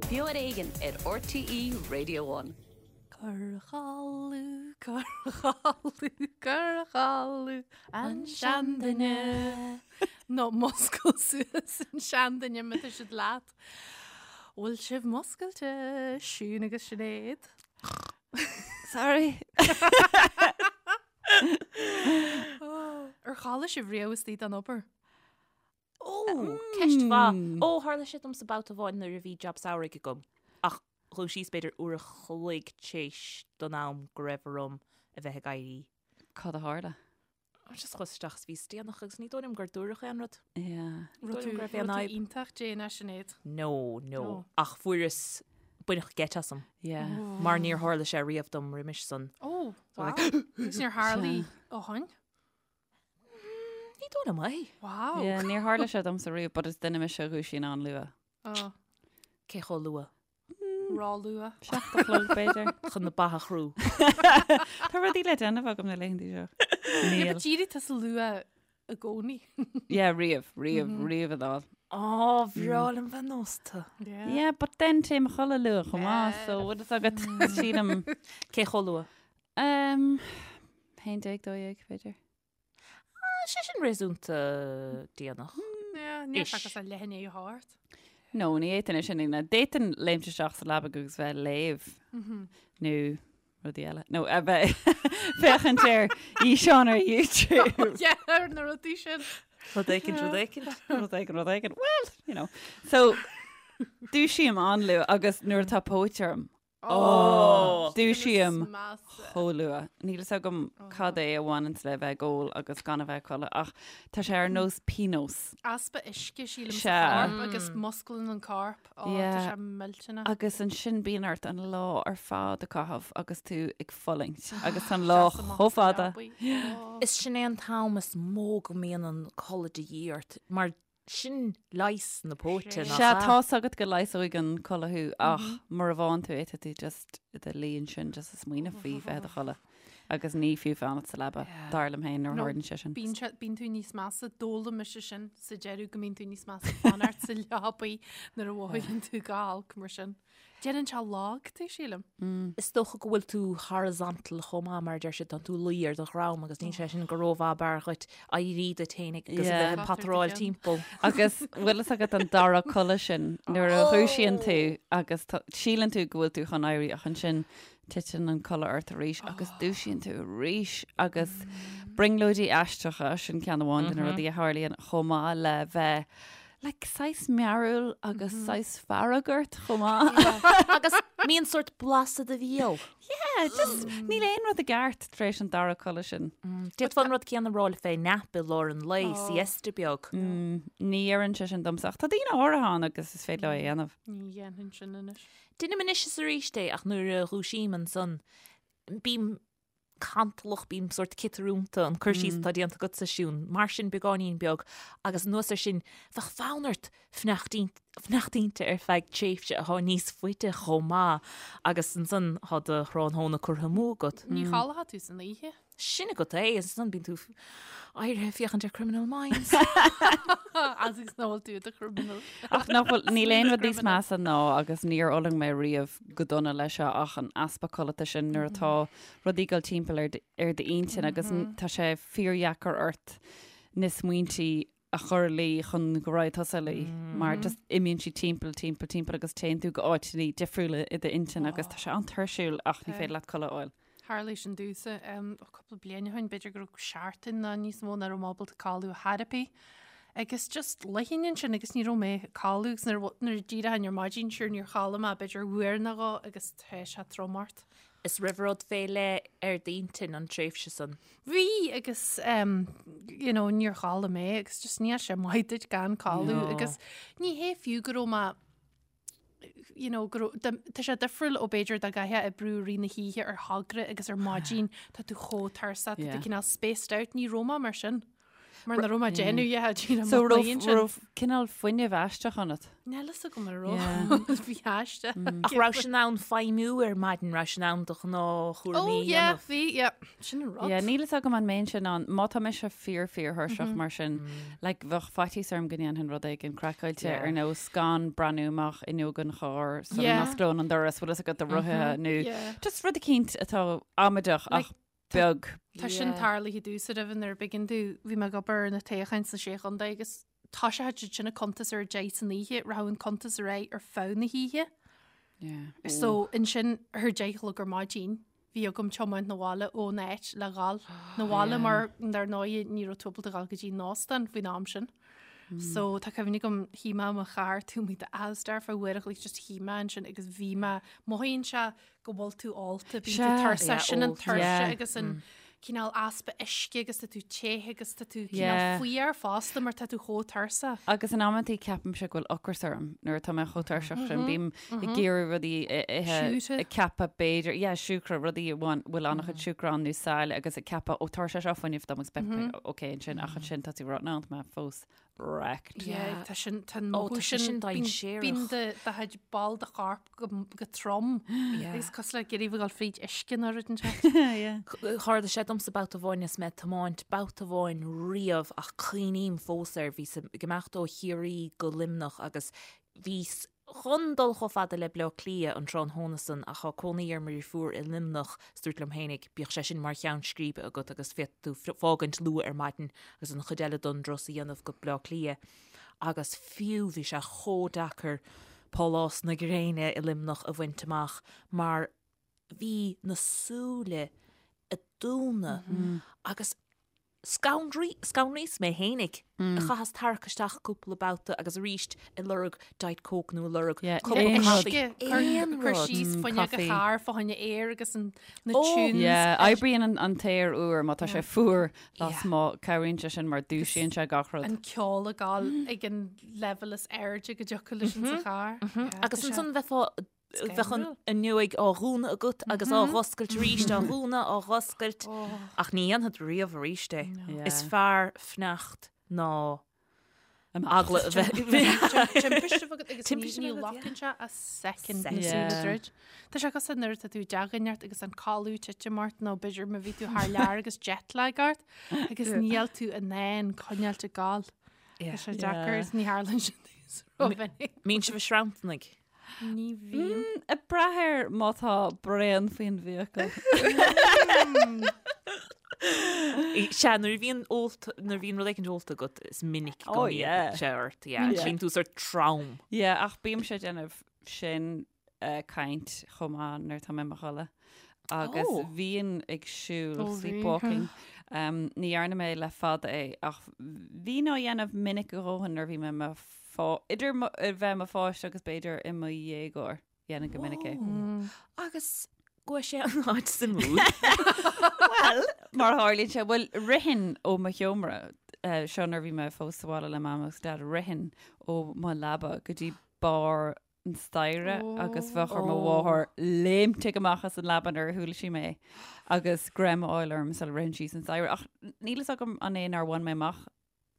Beo ar Éigean ar RTÉ Radio One. Cur a chodladh, cur a chodladh, cur a chodladh an seanduine. Nó múscail suas an seanduine má tá siad leat. Bhfuil sibh múscailte, Siún agus Sinéad? Sorry. Ar chodlaigh sibh riamh istigh den obair? Ó, ceist mhaith. Ó, tharla sé domsa babhta amháin nuair a bhí jab samhraidh agam. Ach dhúisíos b'fhéidir uair a chloig tar éis don am go raibh orm a bheith ag éirí. Cad a tharla? Just chuas isteach is bhíos déanach agus ní dóigh liom gur dúradh aon rud. Yeah. Ní dóigh liom go raibh Raibh aon tú fhadhb. iontach déanach, Sinéad. No, no. No. Ach fuaireas baineadh geit asam. Yeah. Mar níor tharla sé riamh dom roimis san. Ó, wow. Agus níor tharla ó shin? Ní dóigh liom é. Wow. Yeah, níor tharla sé domsa riamh, but is duine mise a dhúisíonn an-luath. Oh, Cé chomh luath? Róluath. 7 a chlog, b'fhéidir. Chun na ba a chrú. Tá rudaí le déanamh agam na laethanta seo. Yeah, Níl. but d'éirigh tusa luath i gcónaí. Yeah, riamh, riamh, riamh a dháil. Á, bhreá liom bheith nósta. Yeah. Yeah, but then téim a chodladh luath chomh maith, so bhfuil fhios agat, sílim. Cé chomh luath? Um, 11, 12, b'fhéidir. Ah, sé sin réasúnta déanach. Yeah, níl Ish. seachas a leath i ndiaidh a hocht. No, ní fhéadfainn é sin a dhéanamh. D'fhéadfainn léimt isteach sa leaba agus bheith ag léamh nó rudaí eile. Nó a bheith féachaint ar fhíseán ar YouTube. Yeah, ar na rudaí sin. Rud éicint, rud éicint. Rud éigin, rud éigin. Well, you know. So, dúisím an-luath agus nuair atá póit orm, Ó! Dúisím chomh luath. Níl fhios agam cad é a bhaineanns le bheith ag ól agus gan a bheith ag codladh ach tá sé ar nós pionós. Easpa uisce, sílim, sa Sea. chorp agus musclaíonn an corp. Ó, tá Yeah. sé millteanach. Agus ansin bíonn ort an lá ar fad a chaitheamh agus tú ag fulaingt agus tá an lá Seas amach chomh sa fada. leabaidh. Ó. Is sin é an t-am is mó go mbíonn an codladh de dhíth ort mar Sin leigheas na póite, nach Sea, ea? tá's agat go leigheasóidh an codladh thú ach mura bhfaigheann tú é, tá tú just i do luí ansin just ag smaoineamh faoi bheith i do chodladh agus ní fiú fanacht sa leaba, dar liom féin, nuair a No, tharlaíonn sé sin. Bíonn sé, bíonn tú níos measa, d'fhoghlaim mise sin sa deireadh go mbíonn tú níos measa fanacht sa leabaidh nuair a mhothaíonn tú go holc mar sin. Déanann sé lag tú, sílim. Is dócha go bhfuil tú horizontal chomh maith, mar a deir siad, tá tú luí ar do dhroim agus níl sé sin go rómhaith ab fhearr dhuit éirí duit féin agus a bheith ag pataráil timpeall. Agus bhfuil fhios agat an dara codladh sin nuair a dhúisíonn tú agus síleann tú go bhfuil tú chun éirí ach ansin titeann an codladh ort arís agus dúisíonn tú arís agus brionglóidí aisteacha, sin ceann amháin de na rudaí a tharlaíonn chomh maith le bheith like saghas mearúil agus saghas fearg ort chomh maith. Agus mbíonn sórt blas i do bhéal. Yeah, just níl aon rud i gceart tar éis an dara codladh sin. D'fhéadfá an rud céanna a rá fé nap i lár an lae, siesta beag. Ní oireann sé sin domsa ach tá daoine áirithe ann agus is féidir leo é a dhéanamh. Ní dhéanfainn sin anois. Deinim anois is arís é ach nuair a dhúisím ansan bím cantalach, bím sórt ciotarúnta, an cur síos atá déanta agatsa, Siún, mar sin beagáinín beag agus anuas air sin bheadh fonn ort fanacht inti ar feadh tréimhse atá níos faide chomh maith agus ansan tá do thráthnóna curtha amú agat. Ní chodlóidh tú san oíche. Sin agat é, agus ansan bíonn tú éirithe ag féachaint ar Criminal Minds. As is nach bhfuil tú i do chriminal. Ach nach bhfuil, níl aon rud níos measa ná, agus níor fhulaing mé riamh go dona leis seo, ach an easpa codlata sin nuair atá rudaí ag dul timpeall ar ar d'intinn agus tá sé fíordheacair ort na smaointí a chur a luí chun go raghaidh tusa a luí mar just imíonn siad timpeall, timpeall, timpeall agus téann tú go áiteanna difriúla i d'intinn agus tá sé an-tuirsiúil ach ní féidir leat codladh a fháil. Tharlaigh sin domhsa cúpla bliain ó shin, b'fhéidir go raibh seachtain nó níos mó nach raibh mé ábalta codladh ar chor ar bith. Agus just luífinn ansin agus ní raibh mé ag codladh agus nuair nuair a d'éireoinn ar maidin sure níor chodlaigh mé b'fhéidir uair nó dhó agus tá sé trom ort. Is raibh rud fé leith ar d'intinn an tréimhse san? Bhí agus um, you know, níor chodlaigh mé agus just níl sé maith duit gan codladh No. agus ní hé fiú go raibh mé you know, go raibh- dá- tá sé difriúil ó b'fhéidir dá gcaithfeá oibriú i rith na hoíche ar thogra agus ar maidin tá tú chomh tuirseach, tá tú Yeah. cineál spaced out, ní raibh mé mar sin. Mar nach raibh mé ag déanamh a dhath díreach So mo raibh chloigeann sin. raibh cineál fuinneamh aisteach ionat. Níl fhios agam an raibh. Bhí aisteach. Ach raibh sé in ann feidhmiú ar maidin, raibh sé in ann do ghnáthchúraimí Oh a yeah, dhéanamh. bhí, yeah. Sin an rud. Yeah, níl fhios agam an mbeinnse in ann, má tá mise fíor fíor-thuirseach mar sin, like bheadh faitíos orm go ndéanfainn rud éigin craiceáilte Yeah. ar nós gan breathnú amach fhuinneog an chairr sula Yeah. n-osclóinn an doras, bhfuil fhios agat do rothaithe nó Yeah. just rud eicínt atá amaideach ach Like, beag. Tá sin Yeah. tarlaithe domhsa roimhe nuair a b'éigean domh, bhí mé ag obair ar na toghcháin sna Sé Chontae agus thoiseochadh siad sin ag cuntas ar a deich san oíche, rachadh an cuntas ar aghaidh ar feadh na hoíche. Yeah. So ansin ar a deich a chlog ar maidin bhí agam tiomáint na bhaile ón áit le dhul na bhaile mar dar ndóigh ní raibh tú ábalta dhul go dtí an óstán faoin am sin. So tá cuimhne agam shuigh mé i mo charr taobh amuigh d'Asda ar feadh uair a chloig just shuigh mé ansin agus bhí mé mothaíonn sé go bhfuil tú ólta, bíonn tú Sea. tuirseach, Yeah, sin an ólta. tuirse Yeah. agus an cineál easpa uisce agus tá tú te agus tá tú cineál Yeah. fuar fosta mar tá tú chomh tuirseach. Agus in amantaí ceapaimse go bhfuil ocras orm nuair atá mé chomh tuirseach sin. Bím ag iarraidh rudaí a ithe, Siúcra. ag ceapadh b'fhéidir, yeah, siúcra, rudaí a bhfuil bhfuil an-chuid siúcra ann nó saille agus ag ceapadh, ó tabharfaidh sé seo fuinneamh dom agus beidh mé ok ansin ach ansin tá tú ag rá, no, tá mé fós wrecked. Yeah, tá sin tá an Ó, mothú tá sé sin sin dainséarach. bíonn do do chuid ball de chorp go go trom Yeah. agus cosúil le ag iarraidh a bheith ag dul fríd uisce nó rud inteacht. Yeah. Tharla sé domsa babhta amháin is mé ag tiomáint babhta amháin riamh ach cuimhním fós air, bhíos ag imeacht ó Chiarraí go Luimneach agus bhíos chun dul chomh fada le Bleá Cliath an tráthnóna san ach tá cónaí ar mo dheirfiúr i Luimneach is dúirt liom fhéinig bíodh sé sin mar cheann scríbe agat agus féadfaidh tú fágaint luath ar maidin agus an chuid eile don dturas a dhéanamh go Bleá Cliath agus fiú bhí sé chomh deacair Pálás na Gréine i Luimneach a bhaint amach mar bhí na súile ag dúnadh agus Scanraíos mé fhéinig. Chaitheas tarrac isteach cúpla babhta agus arís ag lorg Diet Coke nó ag lorg cupa caife. Aon rud. Cur síos fuinneog an chairr fá choinne aer agus na tunes. Yeah, oibríonn an t-aer úr má tá sé fuar lasmuigh, cabhraíonn sé sin mar dúisíonn sé gach rud. An ceol ag gabháil ag an leibhéal is airde go dtiocfadh leis in sa charr. Agus ansan bheifeá Bheadh an fhuinneog á dhúnadh agat agus á dh'oscailt arís, á dhúnadh, á dh'oscailt. Ach ní dhéanfad riamh arís é. Is fearr fanacht ná eagla a bheith. Timpiste a bheith agat agus ní ghlacann sé ach soicind na súile a dhruid. Tá sé cosúil nuair atá tú i dteach ort agus an codladh titim ort nó b'fhéidir má bhí tú thar lear agus jet lag ort agus níl tú in ann coinneáilt ag gabháil. Tá sé deacair is ní tharlaíonn sin rómhinic. Mbíonn sibh ag sranntarnaigh. Ní bhíonn. Ag brath ar má tá braon faoin bhfiacail. Sea, nuair a bhíonn ólta, nuair a bhíonn rud éicint ólta agat, is minic go Oh, mbíonn yeah. sé ort, yeah. Yeah. Bíonn tú sort trom. Yeah, ach bímse ag déanamh sin caint chomh maith nuair atá mé i mo chodladh. Agus Oh. bhínn ag siúl, Oh, bhí. sleepwalking. Um, ní dhearna mé le fada é, ach bhínn á dhéanamh minic a dhóthain nuair a bhí mé i mo Idir bheith i mo pháiste agus b'fhéidir i mo dhéagóir, dhéanainn go minic é. Agus go bhfuil sé an áit suimiúil. Bhuel, mar a tharlaíonn sé, bhuel, rithinn ó mo sheomra, seo nuair a bhí mé fós sa bhaile le Mam agus Dad, rithinn ó mo leaba go dtí barr an staighre agus bheadh ar mo mháthair léimtigh amach as an leaba nuair a chuala sí mé agus greim a fháil orm sula rithinn síos an staighre. Ach níl fhios agam an é nár bhain mé amach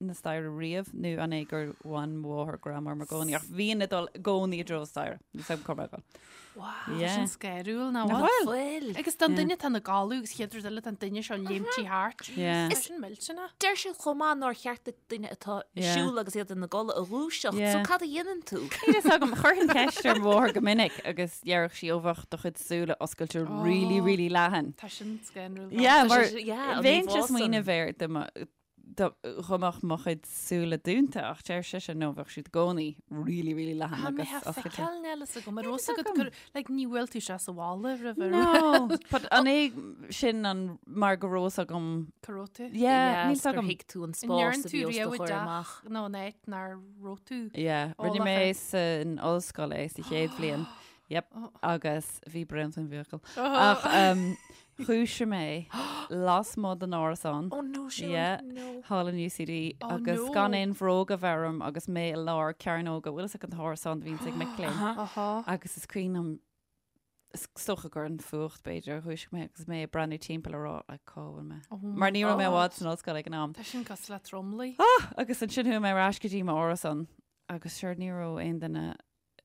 na staighre riamh nó an é gur bhain mo mháthair greim orm i gcónaí ach bhínn ag dul i gcónaí i dtreo staighre. Níl 's agam cá raibh mé ag dul. Wow, Yeah. sin scanrúil nach Nach bhfuil? bhfuil? Bhfuil. Agus don duine atá ina gcodladh agus chéad rud eile tá an duine seo léimtí thart. Yeah. Tá sin millteanach. Deir siad chomh maith nár cheart duit duine atá ag Yeah. siúl agus iad ina gcodladh a dhúiseacht. Yeah. So cad a dhéanann tú? Níl fhios agam, chuirfinn ceist ar mo mháthair go minic agus deireadh sí ó bheadh do chuid súile oscailte really, really leathan. Tá sin scanrúil. Yeah, Tá mar sé- yeah, an bheinn íomhá ag san. smaoineamh air do mo Dá mbeadh mo chuid súile dúnta ach deir sise no bheadh siad i gcónaí really really leathan Tá mé agus ag oscailte. feiceáil níl fhios agam ar Níl fhios fhios agat agam. gur like ní bhfuil tú sé sa bhaile roimh ar No, but an é sin an mar go raibh fhios agam cá raibh tú. Yeah, níl fhios gur agam. thuig tú an An spás ndearn a tú bhí os do riamh i chomhair dteach amach. nó in áit nár raibh tú? Yeah, rinne Eolach mé air. san ollscoil é sa chéad bhliain. Yep, agus bhí braon faoin bhfiacail. Oh. Ach um, dhúisigh mé lasmuigh den árasán. Oh no, Siún, Yeah, no. Thall in UCD Oh, agus no. gan aon bhróg a bheith orm agus mé i lár cearnóga, bhfuil fhios agat an t-árasán a bhíonns ag mic léinn. Aha. Agus is cuimhin liom Is dócha gur an fuacht b'fhéidir a dhúisigh mé agus mé ag breathnú timpeall a rá like cá bhfuil mé. Oh Mar ní raibh mé i bhfad san ollscoil ag an am. Tá sin cosúil le tromluí. Ah! Agus ansin chuaigh mé ar ais go dtí m'árasán agus sure ní raibh aon duine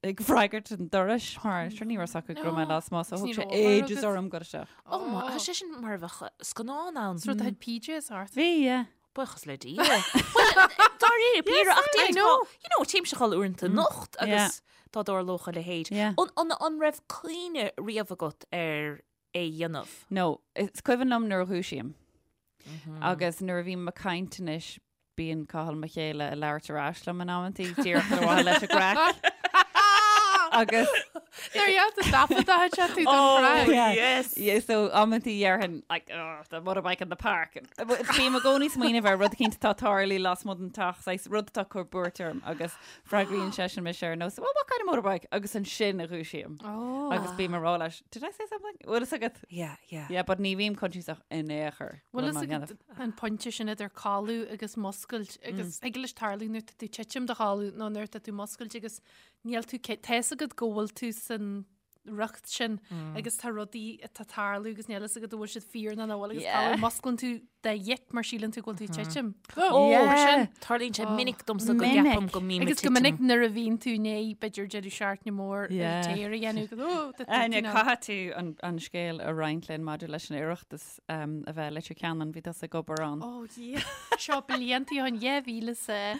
ag freagairt an dorais mar sure ní raibh fhios acu go raibh mé lasmuigh so thug sé ages orm dul isteach. Oh my, tá sé sin mar a bheadh scannán ann. Is rud a PJs ort. Bhí, yeah. Buíochas le Dia. Bhuel, dáiríre, píre, ach I know. You know, téimse a chodladh uaireanta anocht agus dá dtarlódh a leithéid. Yeah. An, an, an raibh cuimhne riamh agat ar é a dhéanamh? No, is cuimhin liom nuair a dhúisím. Agus nuair a bhím ag caint anois, bíonn Cathal mo chéile ag labhairt ar ais liom in amantaí, díreach ar mhaithe leis an gcraic. Agus Nuair a dhéantar taifead a sé tú don chraic. Yeah. Yes. Yeah, so amantaí déarfainn like, oh, the motorbike in the park. Bím i gcónaí ag smaoineamh ar rud eicínt atá ag tarlú lasmuigh den teach, saghas rud atá ag cur buairt orm agus freagraíonn seisean mise ar nós, well, what kind of motorbike? Agus ansin a dhúisím. Oh. Agus bím ag rá leis, did I say something? Bhfuil fhios agat? Yeah, yeah. Yeah, but ní bhím coinsiasach in aon chor. Bhfuil fhios agat an pointe sin idir codladh agus muscailt agus thig leis tarlú nuair atá tú ag titim do chodladh nó nuair atá tú muscailt agus Níl tú, tá fhios agat go bhfuil tú san riocht sin agus tá rudaí atá ag tarlú agus níl fhios agat an bhfuil siad fíor nó nach bhfuil agus tá musclaíonn tú de dhit mar síleann tú go bhfuil tú ag titim. Ó, Yeah. sin. Tarlaíonn sé minic domsa go Minic. gceapaim go mbím ag Agus go titim. minic nuair a bhíonn tú i ndiaidh b'fhéidir deireadh seachtaine mór Yeah. ar tear a dhéanamh go ó, tá tú Áine, cineál- caithfidh tú an, an scéal a roinnt linn maidir leis an Oireachtas um, a bheith i Leitir Ceanainn, bhí tusa ag obair ann. Ó, yeah. Seo blianta ó shin 2000 's a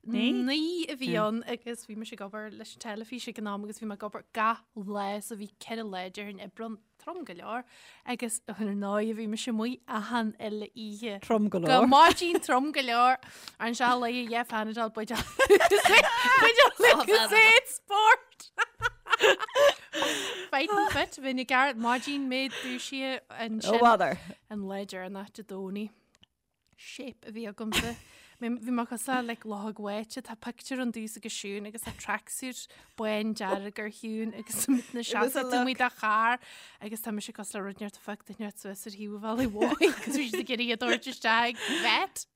9 a bhí ann agus bhí mise ag obair leis an teilifís ag an am agus bhí mé ag obair gach lá so bhí 4 lá déarfainn oibre ann, trom go leor, agus ar ndóigh bhí mise amuigh achan uile oíche. Trom go Go leor. maidin trom go leor an se le dhe Panadol buid sport. Fighting fit bhí na ceart maidin mé dúisithe Ó bother. an lá deireanach Dé Domhnaigh. shape a bhí agamsa. Bhí mé cosúil le like, luchóg bháite, tá pictiúr ann domhsa agus Siún agus tá tracksuit bán dearg ar Shiún agus na seasamh amuigh de charr agus tá mise cosúil le rud inteacht a phioc duine inteacht suas ar thaobh an bhealaigh mhóir agus bhí siad ag iarraidh iad a thabhairt isteach ag vet.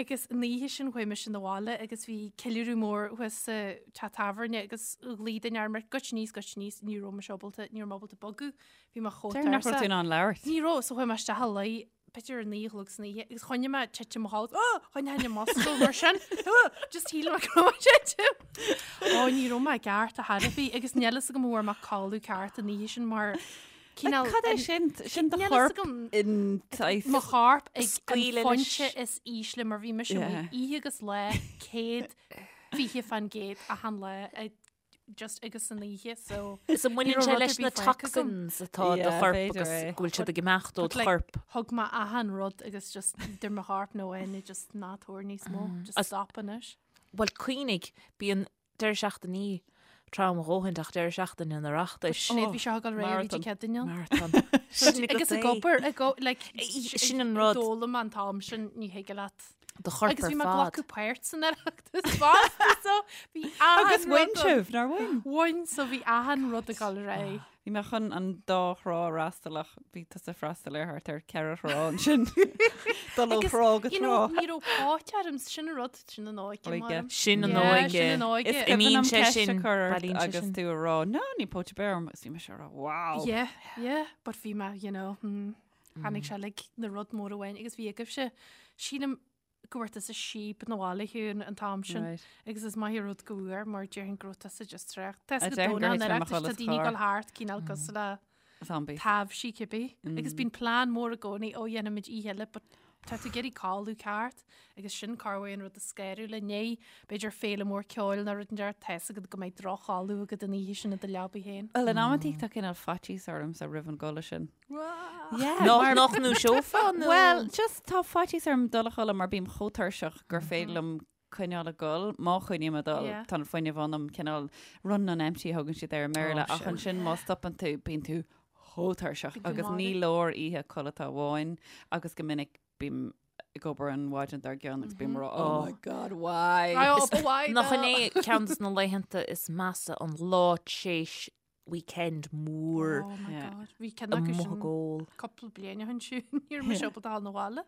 Agus an oíche sin chuaigh mise 'na bhaile agus bhí ceiliúradh mór thuas sa teach tábhairne agus ghlaoigh duine orm goitse aníos, goitse aníos, ní raibh mise ábalta, ní raibh mé ábalta bogadh, bhí mé chomh Deir nach raibh tú in ann labhairt. Ní raibh, so chuaigh mé isteach a luí b'fhéidir ar 9 a chlog san oíche agus choinnigh mé titim mo chodladh, oh, choinnigh mé muscail mar sin, oh, just shíl mé go raibh mé ag titim. Ó, ní raibh mé i gceart ar chor ar bith agus níl fhios agam an bhfuair mé codladh ceart an oíche sin mar cineál Cad é sin? Sin do Níl fhios chorp agam. in saghas- mo chorp ag an Scaoileadh leis. phointe is ísle mar bhí mise Yeah. amuigh oíche agus lá 120% achan lá ag just agus san oíche so Is an mbaineann Ní sé raibh rud leis ar na bith faighte agam. toxins atá i do Yeah, chorp b'fhéidir agus é. go bhfuil siad ag imeacht ó But do like, chorp. thug mé achan rud agus just idir mo chorp nó aon just ná tabhair níos mó just As- stop anois. Bhuel cuimhnigh, bíonn deireadh seachtainí trom a dhóthain ach deireadh seachtaine an Oireachtais. Sinéad bhí seo ag dul réidh bhí marathon. cead ann. Marathon. Sin agat Agus ag é. obair ag o- like, Sin an rud. D'fhoghlaim an t-am sin ní thig leat. Do chorp Agus ar bhí mé fad. glacadh páirt san Oireachtas fosta so bhí achan Agus bhain rud sibh, nár bhain? Bhain so bhí achan rud ag dul ar aghaidh. Bhí mé chun an dá thrá a fhreastal ach bhí tusa ag freastal ar thart ar cheithre thrá ansin. Dul ó Agus, thrá go you know, trá. ní raibh póit orm, sin an rud, sin an óige, Óige. maram. Sin an Yeah, óige. sin an óige. Is cuimhin Imíonn liom sé ceist a sin, chur ort bailíonn sé agus sin. tú a rá, no, níl póit ar bith orm agus bhí mise a rá, wow. Yeah, yeah, but bhí mé, you know, hmm, tháinig sé like na rud mór amháin agus bhí agaibhse, sílim go bhfuair tusa síob 'na bhaile Shiún an t-am sin Right. agus is maith an rud go bhfuair mar déarfainn go raibh tusa just traochta. Tá A go déarfainn gur dóna thit mé an mo Oireachtais, tá chodladh sa daoine ag charr. dul thart cineál cosúil le Zombies. taibhsí cibé. Agus bíonn plean mór i gcónaí, ó dhéanfaimid oíche eile, but tá tú ag iarraidh codladh ceart agus sin corruair an rud is scanrúla inné, b'fhéidir féile mór ceoil nó rud inteacht, tá fhios agat go mbeidh droch-chodladh agat an oíche sin i do leabaidh féin. Well, in amantaí tá cineál faitíos ormsa roimh an gcodladh sin. Yeah, Nach mar- nach ndúiseofá nó? Well, just tá faitíos orm dul a chodladh mar bím chomh tuirseach gur féidir liom coinneáil ag dul, má choinním ag dul, Yeah. tá an fuinneamh ionam cineál run on empty a thugann siad air i mBéarla, Oh, ach sin. ansin má stopann tú, bíonn tú chomh tuirseach Bíonn tú agus ní marbh. leor oíche codlata amháin agus go minic bím ag obair an mhaidin dár gcionn agus bím ag rá, oh my god, why? Ai, ó, ba mhaith Nach dó. in é ceann de na laethanta is measa an lá tréis weekend mór Oh my Yeah. god. Bhí ceann acu amuigh sin ag ól. cúpla bliain ó shin siúd, ní raibh mise ábalta dul 'na bhaile.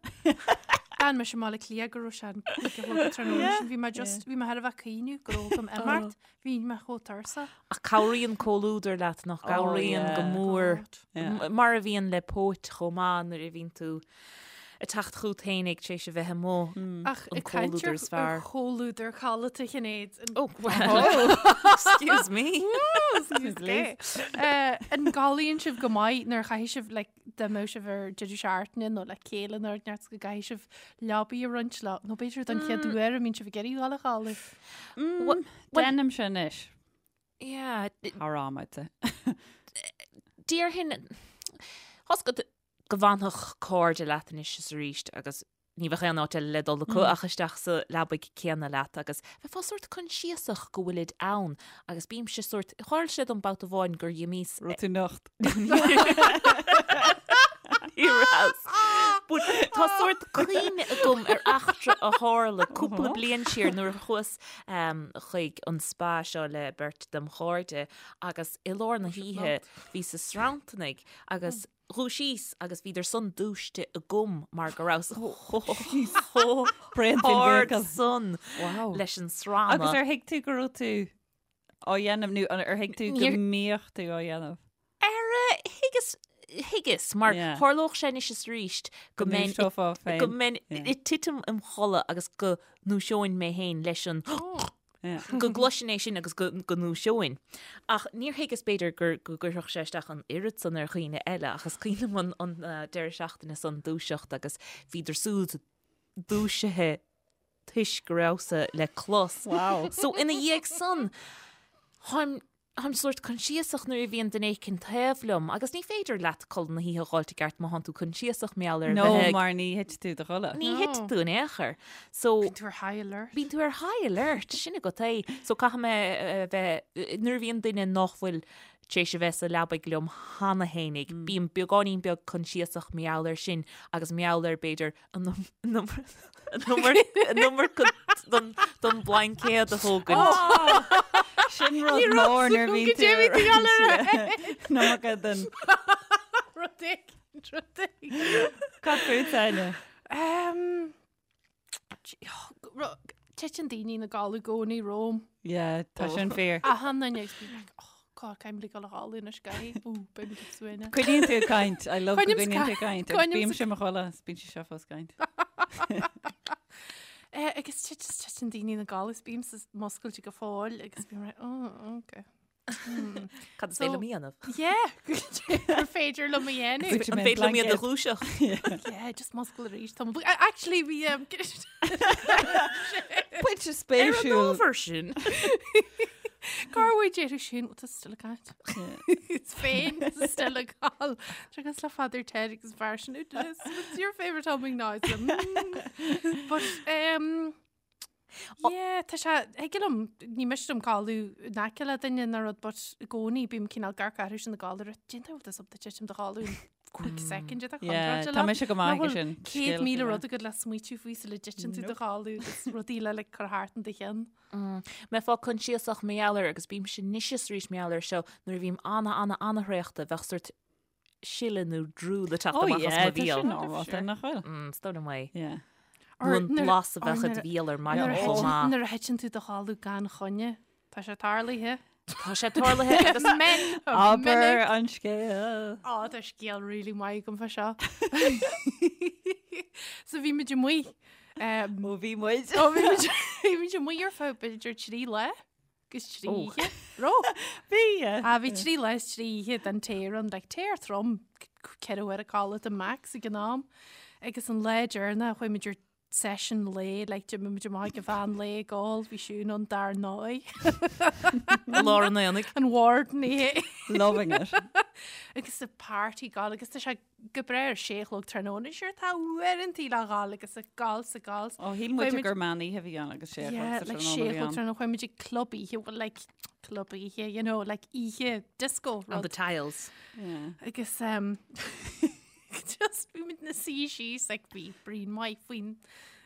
D'fhan mise i mBaile Átha Cliath go raibh sé an 5 a chlog tráthnóna sin. Bhí mé just, bhí mé thar a bheith ag cuimhneamh go raibh agam imeacht. Bhí mé chomh tuirseach. Ach cabhraíonn comhluadar leat nach gcabhraíonn go mór. Mar a bhíonn le póit chomh maith nuair a bhíonn tú ag teacht chugat fhéinig tar éis a bheith amuigh. Ach An ag caint comhluadar ar is fearr. ar chomhluadar codlata Shinéad. Oh, well, excuse me. Excuse me. An gcodlaíonn sibh go maith nuair a chaithfidh sibh like, dá mbeadh sibh ar deireadh seachtaine nó le chéile nó neart go gcaithfidh sibh leabaidh a roinnt le nó b'fhéidir don chéad uair a mbíonn sibh ag iarraidh dul a chodladh. Well, Déanaimse anois. Yeah, Thar am, I'd say. Déarfainn tá's agat go bhfanfadh cairde leat anois is arís agus ní bheadh aon áit eile le dul acu ach isteach sa leabaidh céanna leat agus bheifeá sórt coinsiasach go bhfuilid ann agus bímse sórt, tharla sé dom babhta amháin gur dh'imíos Raibh tú nocht. Ní rabhas. But tá sórt cuimhne agam ar eachtra a tharla cúpla bliain siar nuair a chuas chuig an spa seo le beirt dem chairde agus i lár na hoíche bhíos ag sranntarnaigh agus dhúisíos agus bhíodar san dúisithe agam mar go rabhas chomh hard san leis an srannadh. Agus ar thuig tú go raibh tú á dhéanamh nó ar thuig tú go mbíodh tú á dhéanamh? Ar thuigeas, thuigeas, mar tharlódh sé anois is arís go mbeinn, go mbeinn ag titim im chodladh agus go ndúiseoinn mé féin leis an go gcloisfinn é sin agus go ndúiseoinn. Ach níor thuigeas b'fhéidir gur go gcuirfeadh sé isteach an oiread san ar dhaoine eile ach is cuimhin liom an deireadh seachtaine san dúiseacht agus bhíodar súd dúisithe toisc go rabhas-sa le clos. Wow. So ina dhiaidh san, táim Táim sórt coinsiasach nuair a bhíonn duine éicint taobh liom agus ní féidir leat codladh na hoíche a dh'fháilt i gceart má thánn tú coinsiasach mar gheall ar No, bheith ag- mar ní thit tú do chodladh. Ní thit tú in aon chor. So Bíonn tú ar high alert. Bíonn tú ar high alert, sin agat é. So caithfidh mé a bheith, nuair a bhíonn duine nach bhfuil tar éis a bheith sa leabaidh liom cheana fhéinig, bím beagáinín beag coinsiasach mar gheall air sin agus mar gheall ar b'fhéidir an iomarca don bhlaincéad a thógaint. Sin rud mór nuair a bhíonn tú ar an iomarca den. Rud éigin, rud éigin. Cad fút, Áine? Titeann daoine ina gcodladh i gcónaí romham. Yeah, tá sin fíor. Achan duine agus bím like, oh, God, caithfidh mé dul a chodladh anois, guy. Ó, beidh muid ag suaimhneas. Coinníonn tú ag caint. I love go Coinním gcoinníonn tú ag caint. Agus bímse i mo chodladh, is bíonn sí seo fós ag caint. Eh, agus titeann daoine ina gcodladh is bímse muscailte go fóill agus bím like, oh, okay. Cad is féidir liom a dhéanamh? Yeah, gur féidir liom a dhéanamh. An féidir liom iad a dhúiseacht? Yeah, just muscail arís. Tá mo- Actually, bhí um, Pointe Ar an spéisiúil. ábhar sin. Cá bhfuil déarfaidh sin tá still ag caint. Is féin still ag gabháil. Agus le Father Ted agus fear sin What's your favourite humming noise? Mm. But um, Yeah, tá sé, thig liom, ní miste liom codladh in aice le duine nó rud, but i gcónaí bím cineál ag amharc orthu sin ag gabháil ar déanta bhfuil tusa ag titim do chodladh in quick second de Yeah, tá mise go maith aige sin. 100,000 rud agat le smaoitiú faoi sula dtiteann tú do chodladh agus rudaí le like, cur thart in do cheann. Mbeifeá coinsiasach mar gheall air agus bímse anois is arís mar gheall air seo nuair a bhím ana ana ana thraochta bheadh sort sileadh nó drúl ag teacht Oh amach as yeah, mo tá bhéal. sin normálta, nach bhfuil? Mm, is dóigh liom é. Yeah. Nó an blas a bheadh i do bhéal ar maidin Nuair a chomh thiteann- maith. nuair a thiteann tú do chodladh gan choinne, tá sé tarlaithe. Tá sé tarlaithe agus Men, Abair an scéal. Á, tá scéal really maith agam fá seo. So bhí muid amuigh. Um, Ó bhí muid. Ó bhí muid bhí muid amuigh ar feadh b'fhéidir 3 lá. Agus 3 oíche. Raibh? Bhí. Ah, bhí 3 lá is 3 oíche den tear ann, like tear trom, 4 uair a codlata max ag an am. Agus an lá deireanach chuaigh muid ar session lae, like d'imigh muid amach ag an mheán lae ag ól, bhí Siún ann dar ndóigh. I lár an aonaigh. An warden í. Loving it. Agus the party ag gabháil agus tá sé go breá ar sé a chlog tráthnóna, sure tá uaireantaí le ghabháil agus ag gabháil 's ag gabháil. Ó, shíl muid gur meán oíche a bhí ann agus sé a chlog sa like tráthnóna sé a a bhí chlog ann. tráthnóna, chuaigh muid ag club oíche, well like club oíche, you know, like oíche disco On the rud. tiles. Yeah. Agus um, just bhí muid na suí síos, like bhí braon maith faoin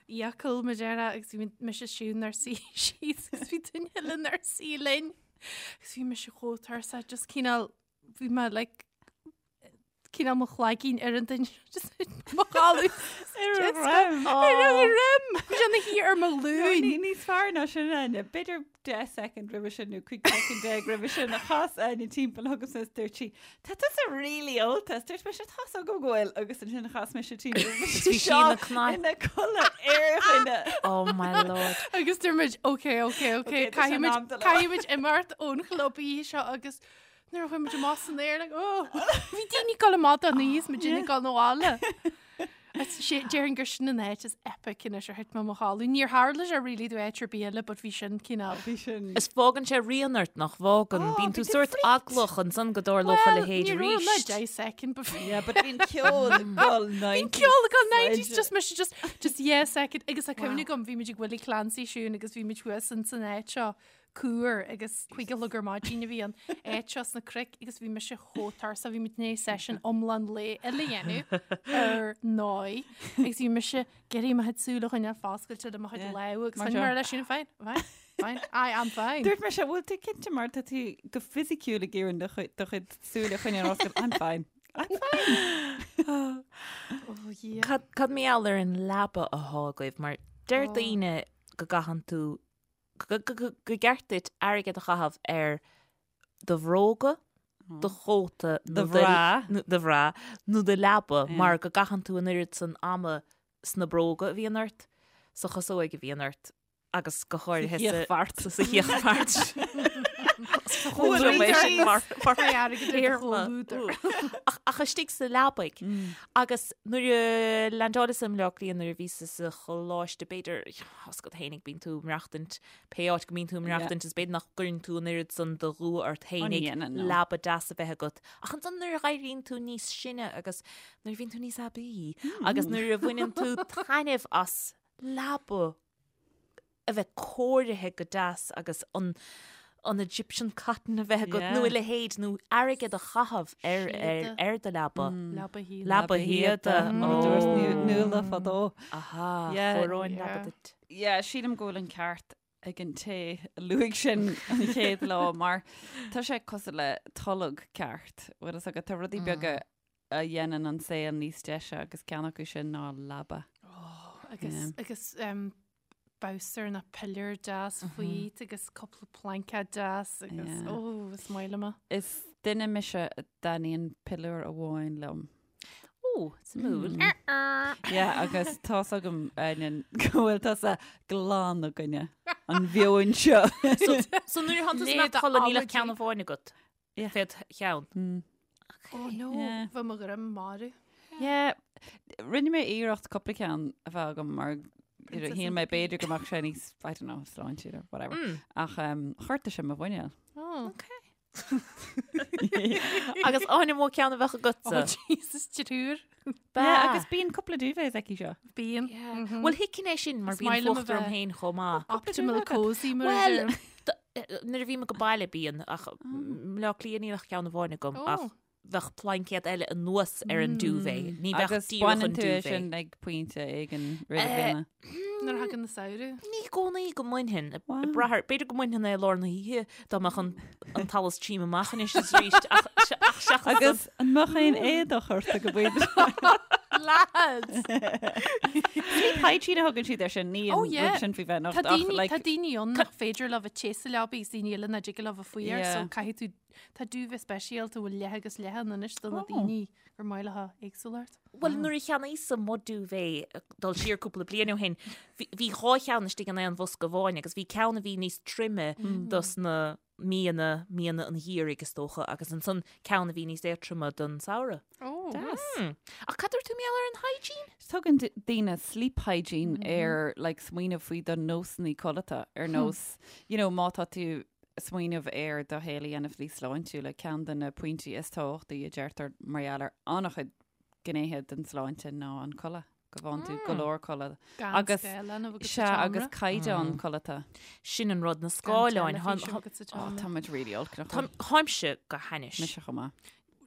fhiacail mar a déarfá agus bhí muid mise Siún inár suí síos agus bhí duine eile inár suí linn. Agus bhí mise chomh tuirseach, just cineál, bhí mé like. cineál mo chloigeann ar an duine just mo chodladh Ar a dhroim. Ar a dhroim! Bhí sé ina shuí ar mo ghlúin. Ní níos fearr ná sin Áine. B'fhéidir 10 second roimhe sin nó 15 soicind roimhe sin a chas Áine timpeall chugamsa is dúirt sí, Tá tusa really ólta. Is dúirt mise, Tá's agam go bhfuil agus ansin chas mise timpeall. Bhí sí ina cnaipe. Ina codladh ar dhuine. Oh my lord. Agus dúirt muid, ok, ok, ok, Ok, tá sé in am caithfimid dul caithfimid imeacht ón chlub oíche seo agus nuair a chuaigh muid amach san aer, like, oh, bhí daoine ag dul amach don oíche is muid ag dul abhaile. Déarfainn gur sin an áit is epic anois ar thit mé i mo chodladh. Níor tharla sé really do áit ar bith eile, but bhí sin cineál. Bhí sin. Is fágann sé rian ort nach bhfágann. Bíonn tú bhí tú sórt freaked. eaglach ansan go dtarlódh a Well, leithéid ní raibh mé arís. 10 second before. Yeah, but bhí an ceol ag dul 90s. Bhí an ceol ag dul 90s, just mise just, just yeah second. Agus tá cuimhne agam, bhí muid ag Willie Clancy siún agus bhí muid thuas in san áit seo cuar agus 5 a chlog ar maidin a bhí an áit seo sna cnoic agus bhí mise chomh tuirseach, bhí muid i ndiaidh session iomlán lae eile a dhéanamh ar ndóigh agus bhí mise ag iarraidh mo chuid súl a choinneáil foscailte le mo chuid Yeah. lámh agus Mar choinnigh seo. mé leis sin fine, fine, fine, I am fine. Dúirt mise, bhfuil tú cinnte mar tá tú go fisiciúil ag iarraidh do chuid- do chuid súile a choinneáil oscailte. I'm fine. I'm fine. Oh, yeah. Cad cad mar gheall ar an leaba athá agaibh mar deir daoine go gcaitheann tú go gceart duit airgead a chaitheamh ar do bhróga, do chóta Do bhra. do bhra nó do leaba mar go gcaitheann tú an oiread san ama sna bróga a bhíonn ort, sa chasóig a bhíonn ort agus go háirithe Sa chíochbheart. sa chíochbheart. Ach istigh sa leabaidh. Agus nuair a leaindeáileas i mBleá Cliath nuair a bhíos sa choláiste b'fhéidir, Tá's agat fhéinig, bíonn tú ag maireachtaint, pé áit go mbíonn tú ag maireachtaint is b'fhéidir nach gcuireann tú an oiread san de dhua ort fhéinig leaba deas a bheith agat. Ach ansan nuair a dh'éiríonn tú níos sine agus nuair a bhíonn tú níos aibí agus nuair a bhaineann tú taitneamh as leaba a bheith cóirithe go deas agus an an Egyptian cotton a bheith agat nó a leithéid nó airgead a chaitheamh ar ar ar do leaba. Leaba shíoda. Leaba shíoda. Mar a dúirt Nuala fadó. Aha, chóireoinn leaba duit. Yeah, sílim go bhfuil an ceart ag an té a luaigh sin an chéad lá mar tá sé cosúil le tolg ceart. Bhfuil fhios agat, tá rudaí beaga a dhéanann an saol níos deise agus ceann acu sin ná leaba. Oh, agus agus um, bolster nó piléar deas faoi agus cúpla plaincéad deas agus ó is maith liom é. Is duine mise a dtaitníonn piléar amháin liom. Ó, suimiúil. Yeah, agus tá's agam Áine go bhfuil tusa glan i gcoinne an mheoin seo. So nuair a tánn tú ag codladh níl ach ceann amháin agat. Yeah. Fé do cheann. Oh no, Yeah. bheadh mo dhroim marbh. Yeah, rinne mé iarracht cúpla ceann a bheith agam mar you know, Princess shíl and mé the Pea. b'fhéidir go mbeadh sé níos, I don't know, sláintiúil or whatever. Ach um, ghortaigh sé mo mhuineál. Oh. Agus Áine an mó ceann a bheadh Oh agatsa. Jesus, triúr. Yeah, agus bíonn cúpla duvets aici seo. Bíonn. Bhuel, thuigfinn é sin mar Is bíonn maith liom a fuacht orm bheith féin chomh maith. Optimal cozy mar a Well, deirim. nuair a bhím ag baile bíonn ach i mBleá Cliath níl ach ceann amháin agam Oh. ach bheadh plaincéad eile anuas ar an duvet. Ní bheadh Agus díreach an baineann tú é duvet. sin ag pointe éigin roimh na bliana. Nuair a thagann an samhradh. Ní i gcónaí go mbainfinn. Wow. Ag brath ar, b'fhéidir go mbainfinn é i lár na hoíche dá mbeadh an an t-allas tríom amach anois is arís ach ach seachas san. Agus an mbeadh aon éadach ort ag an bpointe? Lads! Sleep hygiene a thugann siad air sin, ní an Oh, yeah. rud sin faoi bheith Tá nocht ach daoine like tá daoine ann nach féidir leo bheith te sa leabaidh is daoine eile nach dtig leo bheith fuar Yeah. so caithfidh tú Tá duvet speisialta a bhfuil leath agus leath ann anois do na Oh. daoine gur maith leo éagsúlacht. Bhuel, nuair a cheannaíos-sa mo duvet dul siar cúpla bliain ó shin, bhí bhí dhá cheann istigh in aon bhosca amháin agus bhí ceann a bhí níos troime dos na míonna, míonna an gheimhridh is dócha, agus ansan ceann a bhí níos éadtroime don samhradh. Oh. Deas. Hmm. Ach cad dúirt tú mar gheall ar an hygiene? Tugann daoine sleep hygiene ar like smaoineamh faoi do nósanna codlata ar nós, you know, má tá tú ag smaoineamh ar do shaol a dhéanamh níos sláintiúla, ceann de na pointí is tábhachtaí a deirtear mar gheall ar an-chuid gnéithe den tsláinte ná an codladh, go bhfaigheann tú go leor codladh. Gan Agus- scáileán a bheith agat sa Sea, tseomra. agus caighdeán codlata. Sin an rud, na Gan scáileáin. teilifís a bheith agat sa Ó, tseomra. tá muid really olc, nach bhfuil? Táimse go hainnis. Mise chomh maith.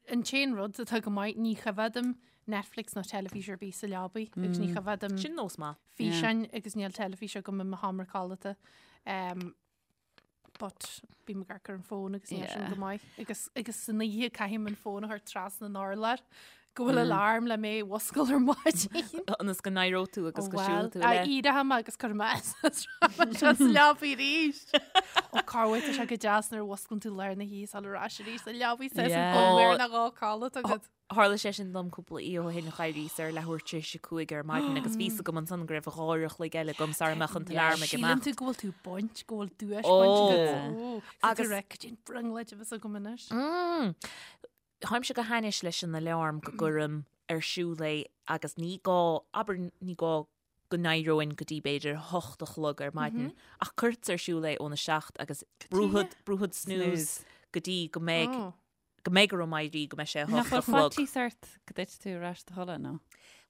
An t-aon rud atá go maith, ní choimhéadaim Netflix nó teilifís ar bith sa leabaidh agus ní choimhéadaim Sin nós maith. físeáin agus níl teilifís agam i mo sheomra codlata. Um, But bím ag amharc ar an fón agus níl sin go maith. Agus agus san oíche caithim an fón a chur trasna an urláir go bhfuil alarm le mé a mhuscail ar maidin. Ionas go n-éireoidh tú agus go siúlfaidh tú le. Éireoidh mé agus cuirfidh mé sa leabaidh arís. Ó cá bhfuil tá sé go deas nuair a mhusclann tú lár na hoíche sula ais arís sa leabaidh sa bhfuil na dhá codladh agat. Tharla sé sin dom cúpla oíche ó shin, d'éiríos ar leathuair tar éis a 5 ar maidin agus bhí 'fhios agam ansan go raibh 2 uair a chloig eile agam sara mbeadh an t-alarm ag imeacht. Síleann tú go bhfuil tú baint, go bhfuil duais bainte agat. Ó, agus cad é an bhrionglóid a bheas agam anois. Táimse go hainnis leis an alarm go gcuirim ar siúl é agus ní gá, abair ní gá go n-éireoinn go dtí b'fhéidir a hocht a chlog ar maidin ach cuirtear ar siúl é óna seacht agus brúfad, brúfad snooze go dtí go mbeidh go mbeidh orm éirí go mbeidh sé a hocht a chlog. Nach bhfuil faitíos ort go dtitfidh tú ar ais i do chodladh, nó?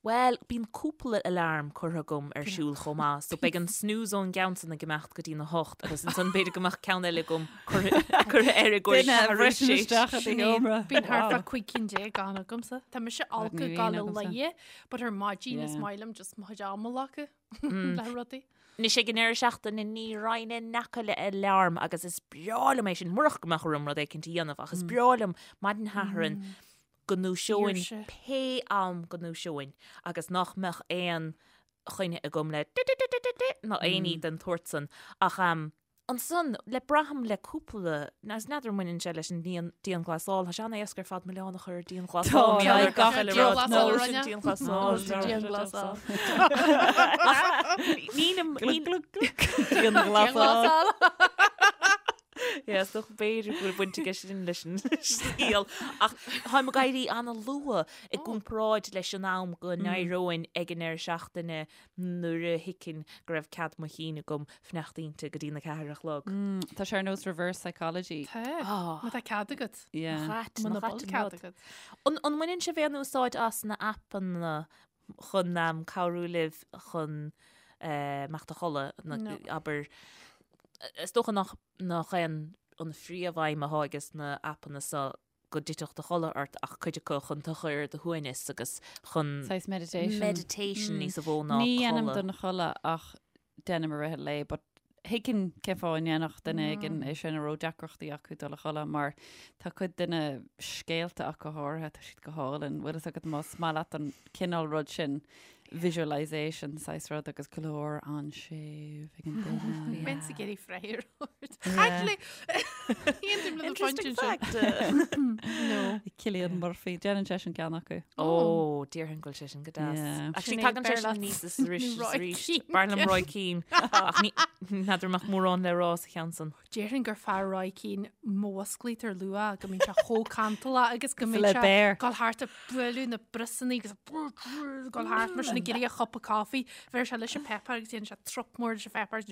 Bhuel, bíonn cúpla alarm curtha agam ar siúl chomh maith, so beidh an snooze ón gceann san ag imeacht go dtí na hocht agus ansan b'fhéidir go mbeadh ceann eile agam curtha air i gcomhair Duine a bhriseann isteach i do sheomra. Bíonn thart fá 15 cinn ann agamsa. Tá mise olc ag gabháil a luí, but ar maidin is maith liom just mo chuid ama a ghlacadh. le rudaí. Anois ag an deireadh seachtaine ní raghainn in aice le alarm agus is breá liom é sin, murach go mbeadh orm rud éicint a dhéanamh ach is breá liom maidin Shathairn go ndúiseoinn pé am go ndúiseoinn agus nach mbeadh aon choinne agam le ná aon ní den tsórt san ach Ansan, le braithim le cúpla, is n'fheadar an mbaineann sé leis an dianghlasáil, tá sé an-éasca ar fad milleán a chur ar dianghlasáil. Tá, tá, gach uile rud. Dianghlasáil. Dianghlasáil. Nílim, Dianghlasáil. Yeah, is dócha b'fhéidir go bhfuil baint aige sin leis an scéal. Ach táim ag éirí an-luath i gcomparáid leis an am go n-éireoinn ag an deireadh seachtaine nuair a thuigfinn go raibh cead mo chinn agam fanacht inti go dtí na ceathair a chlog. Tá sé ar nós reverse psychology. Tá. Má tá cead agat. Yeah. Muna bhfuil cead agat. An mbaineann sibh aon úsáid as na aipeanna chun cabhrú libh chun imeacht a chodladh? Abair, is dócha nach é an phríomhaidhm atá ages na aipeanna so go dtitfeadh do chodladh ort ach cuid acu chun tú a chur ar do shuaimhneas agus chun Saghas meditation. meditation níos mó ná Ní dhéanaim codladh. don chodladh ach déanaim i rith an lae but thuigfinn cén fáth a ndéanfadh duine éigin é sin a raibh deacrachtaí acu dul a chodladh mar tá cuid de na scéalta ach go háirithe tá siad go hálainn. Bhfuil fhios agat más maith leat an cineál rud sin visualisation saghas rud agus glór an-séimh ag an duine. Bheinn ag iarraidh freagra a thabhairt. Actually, aontaím le do phointe Interesting sin. fact. No. Cillian Murphy, déanann sé sin ceann acu. Ó, déarfainn go bhfuil sé sin go deas. Yeah. Actually, Sinéad tagann sé sin Beir leat. níos is arís is Roy arís. Keane. B'fhearr liom Roy Keane. Ach ní n'fheadar an mbeadh mórán le rá sa cheann san. Déarfainn gur fearr Roy Keane má mhusclaítear luath go mbíonn sé chomh cantalach agus go mbíonn Le sé béar. ag dul thart ag bualadh na briosanna agus ag dul thart mar sin ag iarraidh a chupa coffee. Bheir sé leis an pepper agus dhéanann sé trup mór leis an pepper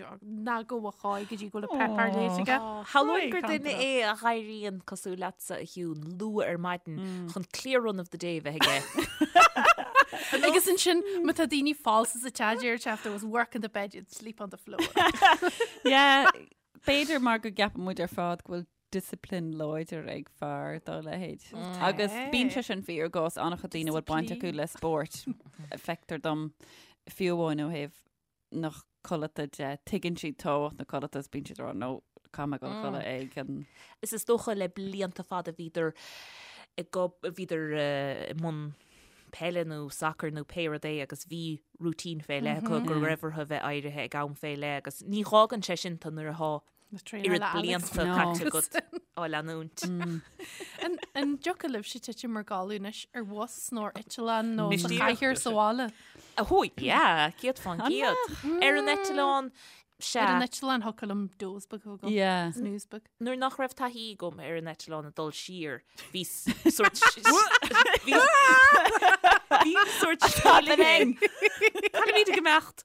ná go bhfuil cháidh go dtí go bhfuil an pepper léite aige. Shamhlóinn gur duine é a dh'éiríonn cosúil leatsa a Shiún luath ar maidin chun clear run of the day a bheith aige. Agus ansin má tá daoine falsa sa teach deir sé if there was work in the bed you'd sleep on the floor. Yeah, b'fhéidir mar go gceapann muid ar fad go bhfuil discipline láidir ag fear dá leithéid. Agus bíonn sé sin fíor i gcás an-chuid daoine a bhfuil baint acu le spórt. Feictear dom fiú amháin ó thaobh na codlata de, tuigeann siad tábhacht na codlata is bíonn siad ag rá no, caithfidh mé dul a chodladh ag an. Is is dócha le blianta fada bhíodar ag bhíodar i mbun peile nó sacair nó pé rud é agus bhí routine fé leith acu go raibh orthu bheith éirithe ag am fé leith agus ní dh'fhágann sé sin tú nuair atá oiread blianta caite agat á leanúint. An dtiocfadh libhse titim i gcodladh anois ar bhus nó ar eitleán nó sa chathaoir sa bhaile? Oh yeah, 100%. Ar an eitleán, sea. Ar an eitleán thiocfadh liom doze beag a bheith agam. Yeah. Snooze beag. Nuair nach raibh taithí agam ar an eitleán ag dul siar, bhí sórt bhí bhí sórt sceimhlithe. Caithfimid ag imeacht.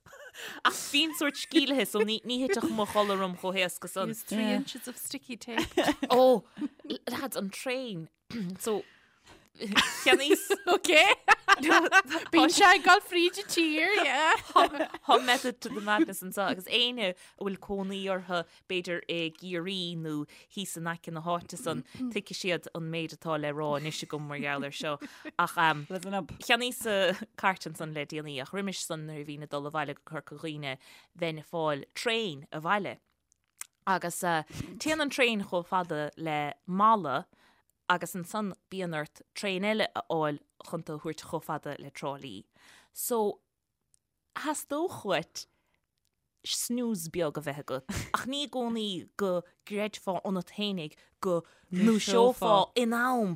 Ach bhínn sórt sceimhlithe so ní ní thitfeadh mo chodladh orm chomh héasca san. Use 3 inches of sticky tape. Ó, lads, an traein. So, cheannaíos. Ok. Bíonn sé ag dul fríd an tír, yeah. Tá method to the madness anseo agus éinne a bhfuil cónaí orthu b'fhéidir i gCiarraí nó thíos in aice na háite san, tuigfidh siad an méid atá le rá anois agam mar gheall air seo. Ach Listen up. cheannaíos cairt ansan le déanaí ach roimis san nuair a bhínn ag dul abhaile go Corca Dhuibhne bheinn ag fáil traein abhaile. Agus téann an traein chomh fada le Mala agus ansan bíonn ort traein eile a fháil chun tú a thabhairt chomh fada le Trá Lí. So, theastódh uait snooze beag a bheith agat, ach ní i gcónaí go gcreidfeá ionat fhéinig go ndúiseofá in am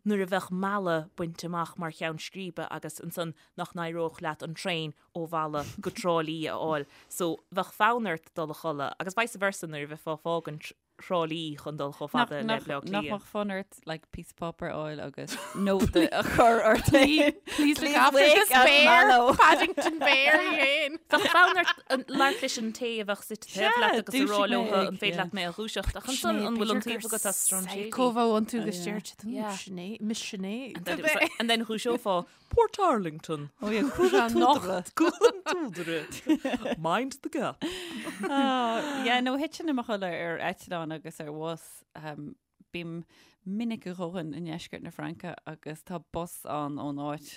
nuair a bheadh Mala bainte amach mar cheann scríbe agus ansan nach n-éireodh leat an traein ó Mhala go Trá Lí a fháil. So, bheadh fonn ort dul a chodladh agus vice versa nuair a bheifeá ag fágaint Thrá Lí chun dul chomh fada le Bleá Nach Cliath. mbeadh fonn ort like píosa páipéir a fháil agus nóta a chur ort féin? Please look after this bear, Paddington Bear í fhéin. Bheadh fonn ort labhairt leis an té a bheadh suite taobh leat agus a rá dúisigh leo mé ag, an féidir leat mé a dhúiseacht ach ansan an bhfuil an taobh agat as strainséirí? Psycho a bheadh iontu agus deir siad, "Ooh, Sinéad, Miss Sinéad. And then dhúiseofá Portarlington. Oh yeah, Cúl an tSúdaire. Cúl an tSúdaire. Mind the gap. Oh, yeah, no, thitfinn i mo chodladh ar eitleán agus ar bhus. Um, bím minic a dhóthain i ndeisceart na Fraince agus tá bus ann ón áit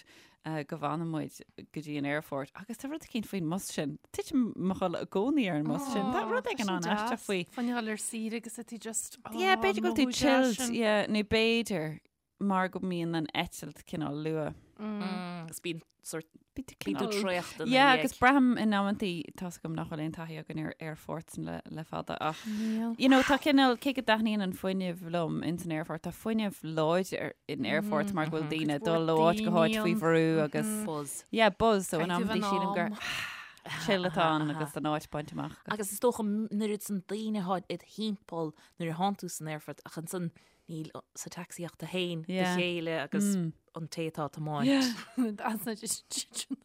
uh, go bhfanann muid go dtí an aerfort agus tá rud eicínt faoin mbus sin. Titim i mo chodladh i gcónaí ar an mbus sin. Tá rud éigin an-aisteach faoi. Fá choinne dhul ar saoire agus tú just, oh, Yeah, b'fhéidir go bhfuil tú mothú deas chilled, sin. yeah, nó b'fhéidir mar go mbíonn an eitilt cineál luath. Agus bíonn sort Bíonn tú bíonn tú cineál- traochta ina Yeah, dhiaidh. agus braithim in amantaí tá's agam nach bhfuil aon taithí againn ar aerfoirt le, le fada ach Níl. you know, tá cineál cé go dtaitníonn an fuinneamh liom ins an aerfort, tá fuinneamh láidir in aerfort mar go bhfuil daoine ag dul ó áit go háit faoi bhrú agus Buzz. yeah, buzz so in Caithfidh amantaí an sílim gur am. chill atá ann agus an áit bainte amach. agat. Agus is dócha an oiread san daoine atá id thimpeall nuair a thánn tú san aerfort ach ansan Níl sa taxi ach tú féin, do chéile agus an té atá ag tiomáint. That's not just sin.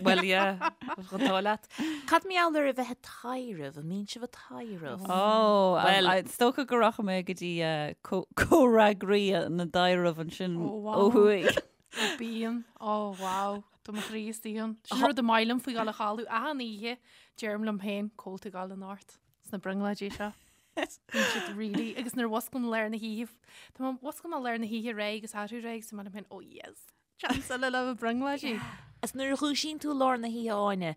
Well, yeah, an t-ádh leat. Cad mar gheall ar a bheith ag taidhreamh? An mbíonn sibh ag taidhreamh? Ó, Well- is dócha go rachaidh mé go dtí comhfhreagraí na dtaidhreamh ansin Ó, wow. ó thuaidh. Ó, bíonn. Ó, wow. Tá mo chroí istigh ann. Sin rud is maith liom faoi dhul a chodladh achan oíche. Deirim liom féin, cá bhfuil tú ag gabháil anocht sna brionglóidí seo. Bíonn siad really, agus nuair a mhusclaím i lár na hoíche, tá mé mhusclaím i lár na hoíche réidh agus athrú réidh agus tá mé liom féin, oh yes, chance eile le mo brionglóidí. Is nuair a dhúisíonn tú i lár na hoíche Áine,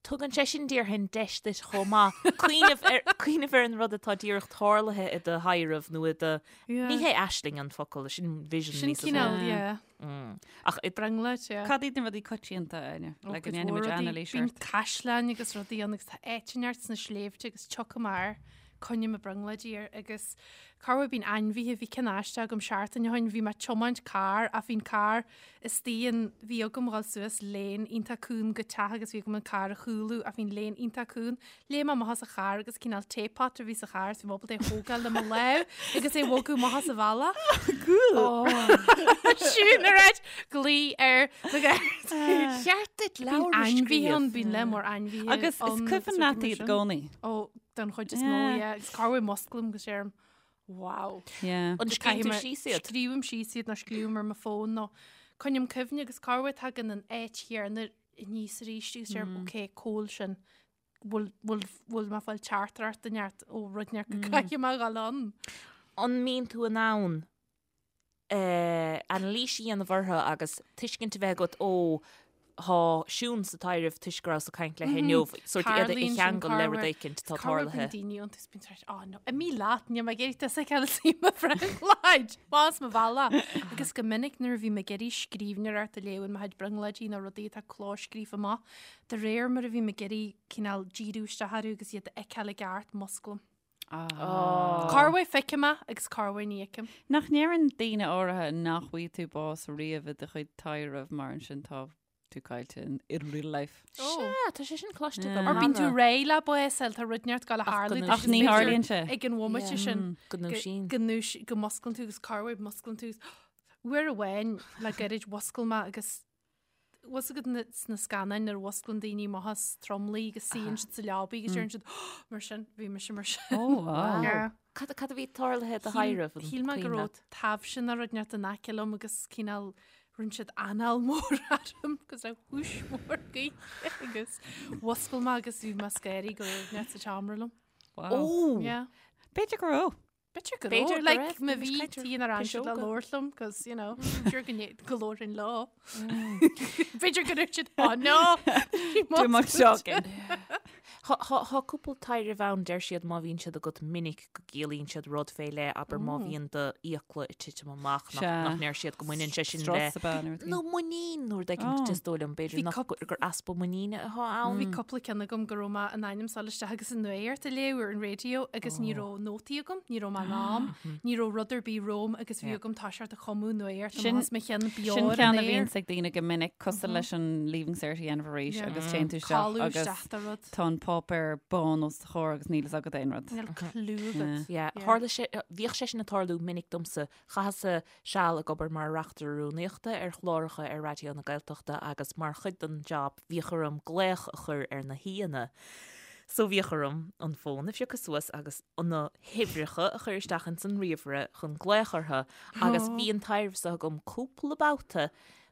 tugann sé sin déarfainn deis duit chomh maith cuimhneamh ar cuimhneamh ar an rud atá díreach tarlaithe i do thaidhreamh nó i do Yeah. ní hé aisling an focal, sin vision Sin níos mó. cineál, yeah. Ach i Brionglóid, yeah. Cad iad na rudaí coitianta, Áine? Ó, Le go cuid ndéanfaidh mhór muid rudaí. anailís Bíonn ort. caisleáin agus rudaí ann agus tá áit inteacht sna sléibhte agus tiocfaidh mé air, coinneoidh mé brionglóidí air agus corruair bíonn ainmhithe, bhí ceann aisteach agam seachtain ó shin, bhí mé ag tiomáint carr ach bhí an carr istigh in, bhí agam dhul suas lane iontach cúng go teach agus bhí agam an carr a chúlú ach bhí an lane iontach cúng. Léim mé amach as an charr agus cineál teapot a bhí sa charr so bhí mé ábalta é a thógáil le mo lámh agus é a bhogadh amach as an bhealach. Cool! Siún ar ait glaoigh ar na Gardaí. Cheart duit Bíonn leabhar a ainmhithe ann, scríobh. bíonn lear mór ainmhithe Agus is ann cuimhin agus leat rudaí mar iad i sin. gcónaí. Ó, don chuid is mó, Yeah. yeah. Agus corruair musclaím agus deirim, wow. Yeah. An scríobhann tú Caithfidh mé- síos iad? Scríobhaim síos iad nó scríobhaim ar mo fón nó coinním cuimhne agus corruair tagann an áit chéanna aníos arís agus deirim, ok, cá bhfuil sin. bhfuil bhfuil mé ag fáil teachtaireacht inteacht ó rud inteacht go gcaithfidh mé a dhul ann. An mbíonn tú in ann anailís a dhéanamh orthu agus tuiscint a bheith agat ó tá Siún sa taidhreamh toisc go rabhas ag caint léi inniu, sórt iad a cheangal le rud éicint atá tarlaithe. Tarlaíonn daoine iontu is bíonn siad oh no, imigh leat, níl mé ag iarraidh tusa a fheiceáil istigh i mo bhrionglóid, más mo bhealach. Agus go minic nuair a bhí mé ag iarraidh scríbhneoireacht a léamh in mo chuid brionglóidí nó rudaí atá clóscríofa amach, De réir mar a bhím ag iarraidh cineál díriú isteach orthu agus iad a fheiceáil i gceart, musclaím. Corruair feicim é agus corruair ní fheicim. Nach ndeireann daoine áirithe nach bhfaighidh tú bás riamh i do chuid taidhreamh mar ansin tá tú caillte in in real life. Sea, tá sé sin cloiste agam Or bíonn tú cheana. réidh le bás a fháil, tá rud inteacht ag gabháil a Ach go tharlú. ndúisíonn Ach ní tharlaíonn sé. Ag an bhomaite sin. Go ndúisíonn. Go ndúis- go musclann tú agus corruair musclann tú. Uair amháin le gairid mhuscail mé agus Bhfuil fhios agat sna scannáin nuair a mhusclann daoine amach as tromluí agus suíonn siad sa leabaidh agus deireann siad mar sin, bhí mise mar sin. Oh, wow. Yeah. Cad cad a bhí tarlaithe i do thaidhreamh? an Shíl mé go cuimhin raibh leat? taibhse nó rud inteacht in aice liom agus cineál rinne siad anáil mór orm agus raibh húis mór gaoithe agus mhuscail mé agus bhí mé scary go raibh rud inteacht sa tseomra liom. Wow. Ó! Yeah. B'fhéidir go raibh. B'fhéidir go B'fhéidir raibh, go like, raibh, má bhí bhí mise caite tí ar an siad le piseoga. labhairt liom, cos, you know, sure go ndé- go labhrainn leo. B'fhéidir go raibh siad, oh no! Too much talking. Tá cúpla taidhreamh ann, deir siad má bhíonn siad agat minic go gciallaíonn siad rud fé leith, abair má bhíonn do fhiacla ag titim amach, nach ndeir siad go mbaineann sé sin le. Strus ab ea nó rud Nó muinín nó rud éigin is dóigh liom, b'fhéidir nach gur easpa muiníne atá ann. Bhí cúpla ceann agam go raibh mé in ainm is a dhul isteach agus an nuacht a léamh ar an raidió agus ní raibh nótaí agam, ní raibh mé in am, ní raibh rud ar bith romham agus bhí agam toiseacht ag cumadh nuacht Sin amach as mo cheann beo Sin ar an ceann a aer. bhíonns ag daoine go minic, cosúil leis an Leaving Cert a dhéanamh arís agus téann tú isteach Codladh agus isteach do rud. tá an páipéar bán os do chomhair agus níl fhios agat aon rud. Níl clue agat. Yeah. Tharla sé, bhíodh sé sin ag tarlú minic domsa. Chaitheas-sa seal ag obair mar reachtaire rúnaíochta ar chláracha ar Raidió na Gaeltachta agus mar chuid den job bhíodh orm glaoch a chur ar na haíonna. So bhíodh orm an fón a phiocadh suas agus na huimhreacha a chur isteach ins an ríomhaire chun glaoch orthu agus bhí an taidhreamh so agam cúpla babhta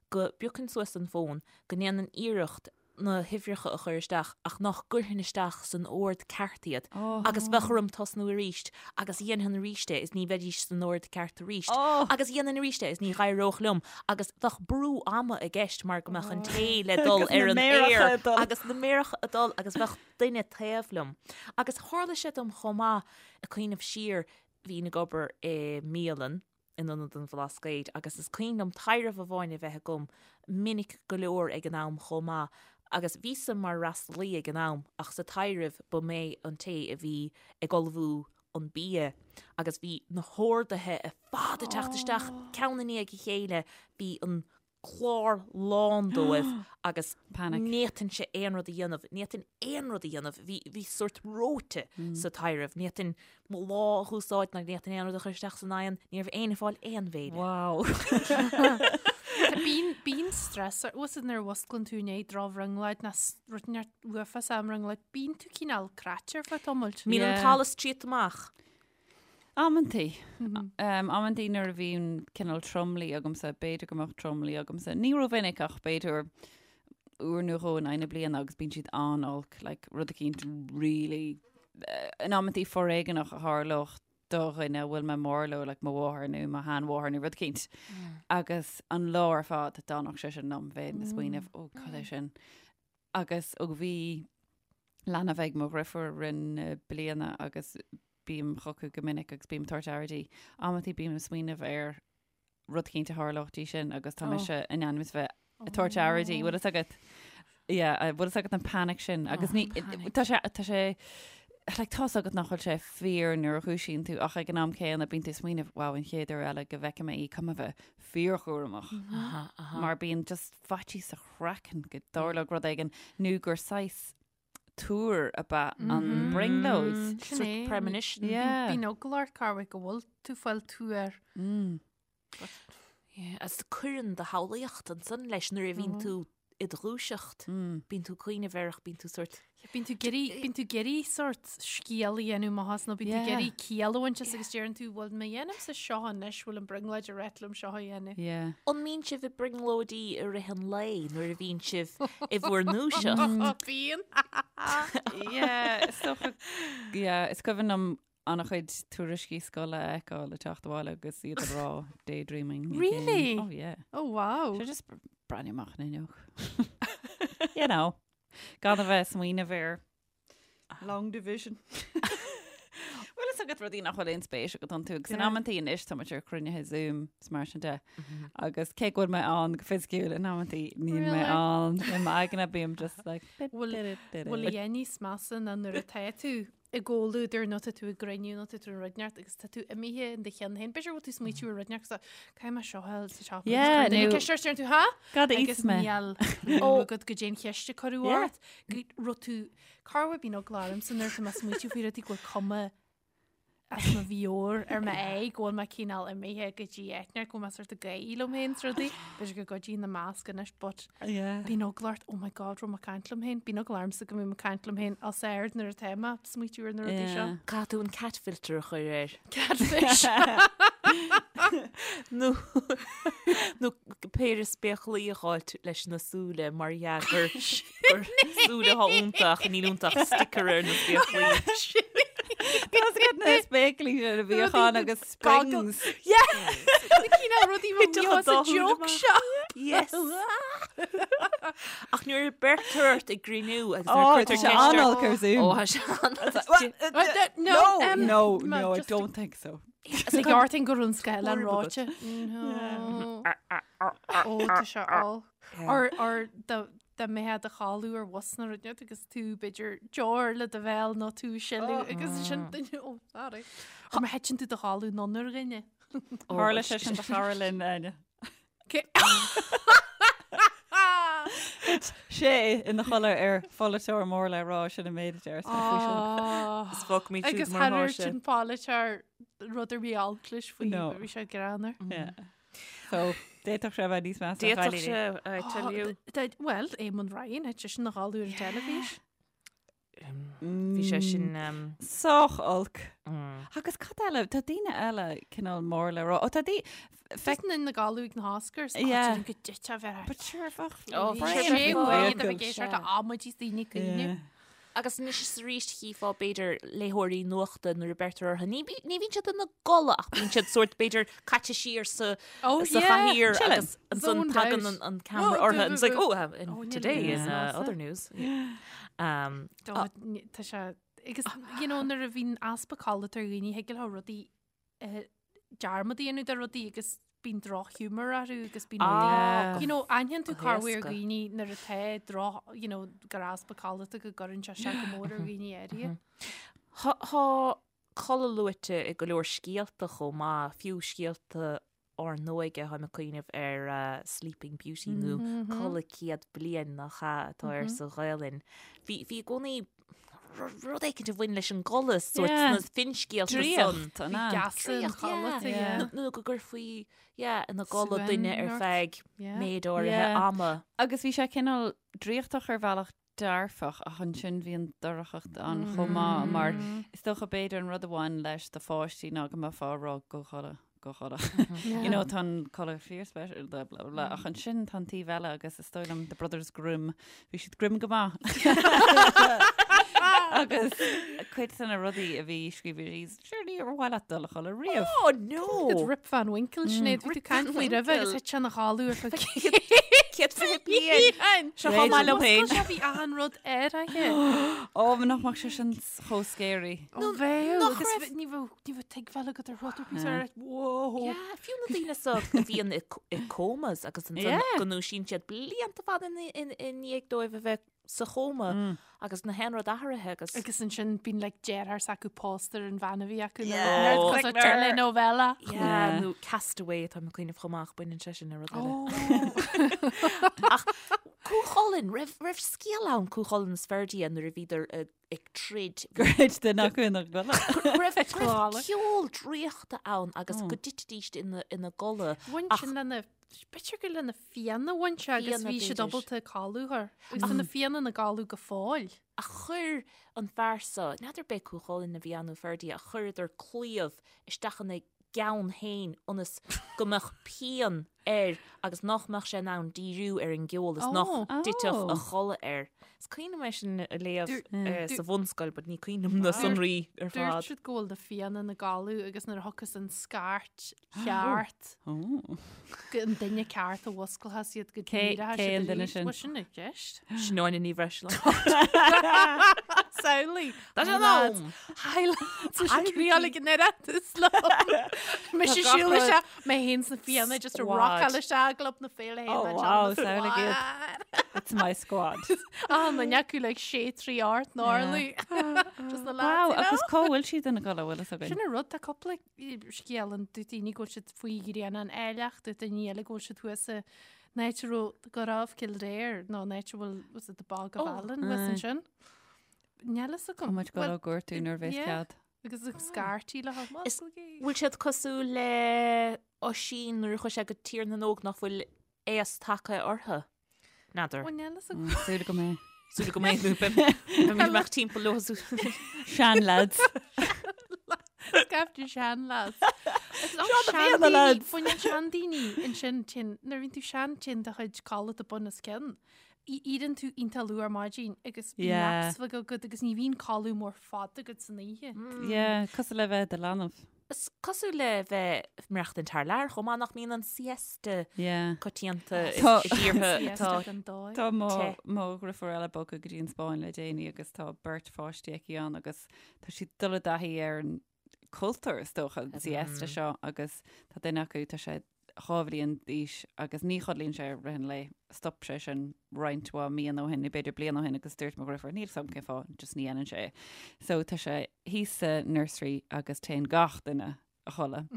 go bpiocfainn suas an fón, go ndéanfainn iarracht na huimhreacha a chur isteach ach nach gcuirfinn isteach san ord ceart iad agus bheadh orm tosnú arís agus dhéanfainn arís é is ní bheidís san ord ceart arís agus dhéanfainn arís é is ní dh'éireodh liom agus bheadh brú ama i gceist mar go mbeadh an té le dul ar an aer agus na méaracha ag dul agus bheadh duine taobh liom. Agus tharla sé dom chomh maith, ag cuimhneamh siar, bhínn ag obair i mbialann in Ionad an Bhlascaoid agus is cuimhin liom taidhreamh amháin a bheith agam minic go leor ag an am chomh maith agus bhíos-sa mar fhreastalaí ag an am ach sa taidhreamh ba mé an té a bhí ag ullmhú an bia agus bhí na horduithe ar fad ag teacht isteach ceann i ndiaidh a chéile, bhí an clár lán dóibh agus Panic. ní fhéadfainnse aon rud a dhéanamh, ní fhéadfainn aon rud a dhéanamh, bhí, bhí sórt reoite sa taidhreamh, ní fhéadfainn mo lámh a úsáid ná ní fhéadfainn aon rud a chur isteach san oigheann, ní raibh éinne ag fáil aon bhéile. Wow. Bíonn, bíonn stress ort, bhfuil nuair a mhusclann tú i ndiaidh drochbhrionglóid nó rud inteacht uafásach i mbrionglóid, bíonn tú cineál cráite ar feadh tamaill. Mbíonn an Yeah. t-allas triota amach. Amantaí. Amantaí nuair a bhíonn cineál tromluí agamsa, b'fhéidir go mbeadh tromluí agamsa. Ní rómhinic ach b'fhéidir uair nó dhó in aghaidh na bliana agus bíonn siad an-olc, like rud eicínt really in amantaí foréigeanach a tharlódh do dhuine a bhfuil mé mór leo, like mo mháthair nó mo sheanmháthair nó rud eicínt. Agus an lá ar fad d'fhanfadh sé sin liom, bheinn ag smaoineamh, ó cad é sin. Agus ó bhí leanbh ag mo dhriofúr i rith na bliana agus bím chucu go minic agus bím ag tabhairt aire di. Amantaí bím ag smaoineamh ar rud eicínt a tharlódh di sin agus tá mise in ainm is bheith ag tabhairt aire di. Bhfuil fhios agat? Yeah, bhfuil fhios agat an panic sin agus ní tá sé tá sé like tá's agat nach bhfuil sé fíor nuair a dhúisíonn tú ach ag an am céanna bíonn tú ag smaoineamh wow an chéad uair eile go bhfeicfidh mé í caithfidh mé bheith fíorchúramach mar bíonn just faitíos sa chraiceann go dtarlódh rud éigin nó gur saghas tuar ab ea an brionglóid. Sin é. Premonition. Yeah. Bíonn eagla ort corruair go bhfuil tú ag fáil tuar. Yeah, agus cuireann do shamhlaíocht ansan leis nuair a bhíonn tú i do dhúiseacht. Bíonn tú ag cuimhneamh air ach bíonn tú sórt Bíonn tú ag iarraidh, bíonn tú ag iarraidh sórt scéal a dhéanamh amach as nó bíonn tú ag iarraidh ciall a bhaint as agus deireann tú bhfuil mé dhéanaimse seo anois, bhfuil an brionglóid ag ráit liom seo a dhéanamh. Yeah. An mbíonn sibh ag brionglóidí i rith an lae nuair a bhíonn sibh i bhur ndúiseacht? Bíonn. Yeah, is dócha, yeah, is cuimhin liom an-chuid tuairiscí scoile a fheiceáil ag teacht abhaile agus iad ag rá daydreaming. again. Really? Oh yeah. Oh wow. So just breathnú amach an fhuinneog. You know. Gan a bheith ag smaoineamh ar long division. Bhfuil fhios agat rudaí nach bhfuil aon spéis agat iontu agus in amantaí anois tá muid ar chruinnithe Zoom is mar sin de. Agus cé go bhfuil mé ann go fisiciúil in amantaí níl mé ann i m'aigne bím just like Bhfuil bhfuil a dhath níos measa ná nuair atá tú i gcomhluadar nó tá tú i gcruinniú nó tá tú i rud inteacht agus tá tú imithe in do cheann féin. B'fhéidir go bhfuil tú ag smaoitiú ar rud inteacht agus caithfidh mé seo a fháil sa teach. Yeah, Duine nó- ceist ort, deireann tú, ha? Cad a Agus íosfaidh mé? níl clue agat goidé an cheist a cuireadh Yeah. ort. Go raibh tú corruair bíonn eagla ormsa nuair atá mé ag smaoitiú faoi rudaí go bhfuil cuma as mo mheabhair ar m'aghaidh go bhfuil mé cineál imithe go dtí áit inteacht go bhfuil mé sort ag gáirí liom féin is rudaí. B'fhéidir go gcuidíonn na masc anois but Yeah. bíonn eagla ort, oh my god, raibh mé ag caint liom féin. Bíonn eagla ormsa go mbím ag caint liom féin os ard nuair atá mé ag smaoitiú ar na rudaí seo. Yeah. Caithfidh tú an cat filter a chur air. Catfish. Nó nó péire spéaclaí a dh'fháilt leis na súile mar dhea gur gur súile atá iontu ach níl iontu ach sticker ar na spéaclaí. Tá's agat na spéaclaí sin a bhíodh ann agus springs. Yeah! Na cineál rudaí Thitfeadh an sa dá shúil joke amach. shop. Yes! Ach nuair a beirtear ort ag gcruinniú agus nuair Oh, a tá cuirtear sé ceist ort- an-olc ar Zoom. Ó, tá sé an-olc. No, No, um, no, ma- no, I just- don't think so. Is ag ortain go run sceil an Horrible. ráite. No. Ó, tá sé olc. Or, or dá dá mbeifeá i do chodladh ar bhus nó rud inteacht agus tú b'fhéidir deoir le do bhéal nó tú ag sileadh agus sin duine ó sorry. Or má thiteann tú i do chodladh anonn ar dhuine. Tharla sé sin do chara linn, Áine. Thit sé ina chodladh ar pholaiteoir mór le rá sin an méid a deir faoi sin. Is fágfaimid siúd Agus mar atá thar sé. sin polaiteoir rud ar bith olc leis faoi No. bhí sé greannmhar. Yeah. So, d'fhéadfadh sé a bheith níos measa. D'fhéadfadh sé, I tell you. Well, Eamon Ryan, thit seisean ina chodladh ar an teilifís. Bhí sé sin. Sách olc. Agus cad eile, tá daoine eile cineál mór le rá. Ó tá daoine. Feiceann ina gcodladh ag na hOscars. Yeah. Go dtit a bheith. But sure, bheadh. Ó, Bhí sé Brian uaidh Michael. a bheith ag éisteacht le amaidí is daoine ag caoineadh. Agus anois is arís chífeá b'fhéidir léitheoirí nuachta nuair a beirtear orthu. Ní ní bhíonn siad ina gcodladh ach bíonn siad sórt b'fhéidir caite siar sa Oh, sa yeah. chathaoir Chilling. agus ansan Zoned tagann out. an, an camera Oh, orthu and it's like, oh, and Oh, níl today aon in snása. other news. Um, Tá tá sé agus you know nuair a bhíonn easpa codlata ar dhaoine thig leo rudaí dearmad a dhéanamh de rudaí agus bíonn drochghiúmar orthu agus bíonn Ah, rudaí you know aithníonn tú go corruair héasca. dhaoine nuair atá droch you know gur easpa codlata go gcuireann sé isteach go mór ar dhaoine áirithe. Tá tá codladh luaite i go leor scéalta chomh maith, fiú scéalta ár n-óige, táim ag cuimhneamh ar Sleeping Beauty nó Codladh Céad Bliain nach ea atá air sa Ghaelainn. Bhí bhí i gcónaí rud éicint a bhain leis an gcodladh sórt Yeah. sna finscéalta san. Draíocht, an ea? Geasa an Draíocht, yeah. chodlata, Yeah. yeah. Nó nó go gcuirfí yeah, ina gcodladh Suan duine ar ort. feadh Yeah. méid áirithe Yeah. ama. Agus bhí sé cineál draíochtach ar bhealach dearfach ach ansin bhí an dorchacht ann chomh maith mar is dócha b'fhéidir an rud a bhain leis do pháistí ná go mbeifeá ag rá gabh a chodladh, gabh a chodladh. You know, tá an codladh fíorspeisialta blah blah blah ach ansin tá an taobh eile agus is dóigh liom The Brothers Grimm, bhí siad grim go maith. Agus cuid de na rudaí a bhí scríofa síos, sure níor mhaith leat dul a chodladh riamh. Oh no! Good Rip Van Winkle, Sinéad, bhí tú ag caint faoi roimhe agus thit sé ina chodladh ar feadh 120 bliain! Seo chomh maith liom féin. Oscail sé bhí achan rud air aici. Ó, nach mbeadh sé sin chomh scary. Ó bheadh, nach agus raibh- ní bheadh ní bheadh tuigbheáil agat ar rud ar bith ar whoa. Yeah, fiú na daoine so a bhíonn i i comas agus ansan Yeah. go ndúisíonn siad blianta fada i i ndiaidh dóibh a bheith sa chóma agus nach aon rud athraithe agus Agus ansin bíonn like deartháir s'acu pósta ar an bhean a bhí acu Yeah. nó cos telenovela. Yeah, Yeah. nó Castaway tá mé ag cuimhneamh chomh maith baineann sé sin le rud eile. Oh. Ach Cú Chulainn, raibh raibh scéal ann Cú Chulainn is Ferdia nuair a bhíodar ag ag troid. Gur thit duine acu ina gcodladh. Raibh raibh Codladh. ceol draíochta ann agus go dtitidís ina ina gcodladh. Bhain Ach- sin lena B'fhéidir gur lena Fianna a bhain sé agus Fianna, bhí siad b'fhéidir. ábalta codladh air. Agus tá na Fianna ina gcodladh go fóill. Ach chuir an fear so, n'fheadar b'é Cú Chulainn a bhí ann nó Ferdia, ach chuireadar claíomh isteach ina gceann féin ionas go mbeadh pian air agus nach mbeadh sé in ann díriú ar an gceol is nach Oh. dtitfeadh a Oh. chodladh air. Is cuimhin liom é sin a léamh Dúirt- sa bhunscoil, but ní cuimhin liom na sonraí ar Dúirt fad. siad go bhfuil na Fianna ina gcodladh agus nuair a thiocfas an scairt cheart, Oh. go an duine ceart a mhusclóchas iad go Cé- díreach cé an duine sin? Bhuel sin i gceist. Sin Áine Ní Bhreisleáin. Samhlaigh. Tá sé Hi, lads. ann! Hi lads. Tá sé triáil ag an Oireachtas liom. Mise Tá gach siúl rud- isteach, mé féin sna Fianna just a Squad. rockáil isteach i gClub na Féile Oh, wow, samhlaigh iad. It's my squad. Ah, na neacu like sé trí art gnarly. Just na Wow, lads, you know? agus cá bhfuil siad ina gcodladh bhfuil fhios againn? Sin an rud tá cúpla scéal ann dúirt daoine go bhfuil siad faoi ghrianán áilleach, dúirt daoine eile go bhfuil siad thuas i n-áit a raibh go raibh Cill Réir nó in áit a bhfuil was it the Bog of Oh, Allen thuas aye. ansin. Níl fhios agam. Tá muid Well, go gortú nuair a bheas yeah. cead. Agus ag scairtí le haghaidh Is- Bhfuil siad cosúil le Oisín nuair a chuaigh sé go Tír na nÓg nach bhfuil aos tagtha orthu? N'fheadar. Bhuel, níl fhios agam. Súil go mbeidh. Súil go mbeidh nó beidh mé amach timpeall leo. Sean lads. Scaifte sean lads. Seo na Fianna lads. Baineann seandaoine ansin tinn, nuair a bhíonn tú sean téann do chuid codlata bun os cionn. Éiríonn tú iontach luath ar maidin agus bíonn Yeah. naps bheag agat agus ní bhíonn codladh mór fada agat san oíche. Yeah, cosúil le bheith i do leanbh. Is cosúil le bheith ag maireachtaint thar lear chomh maith nach mbíonn an siesta coitianta i dtíortha atá Tá mo mo dheirfiúr eile bogtha go dtí an Spáinn le déanaí agus tá beirt pháistí aici ann agus tá siad ag dul i dtaithí ar an cultúr is dócha an siesta seo agus tá duine acu tá sé 2 bhliain d'aois agus ní chodlaíonn sé i rith an lae. Stop sé sin roinnt mhaith míonna ó shin, nó b'fhéidir bliain ó shin agus dúirt mo dheirfiúr, níl 'fhios agam cén fáth, just ní dhéanann sé é. So tá sé thíos sa nursery agus téann gach duine a chodladh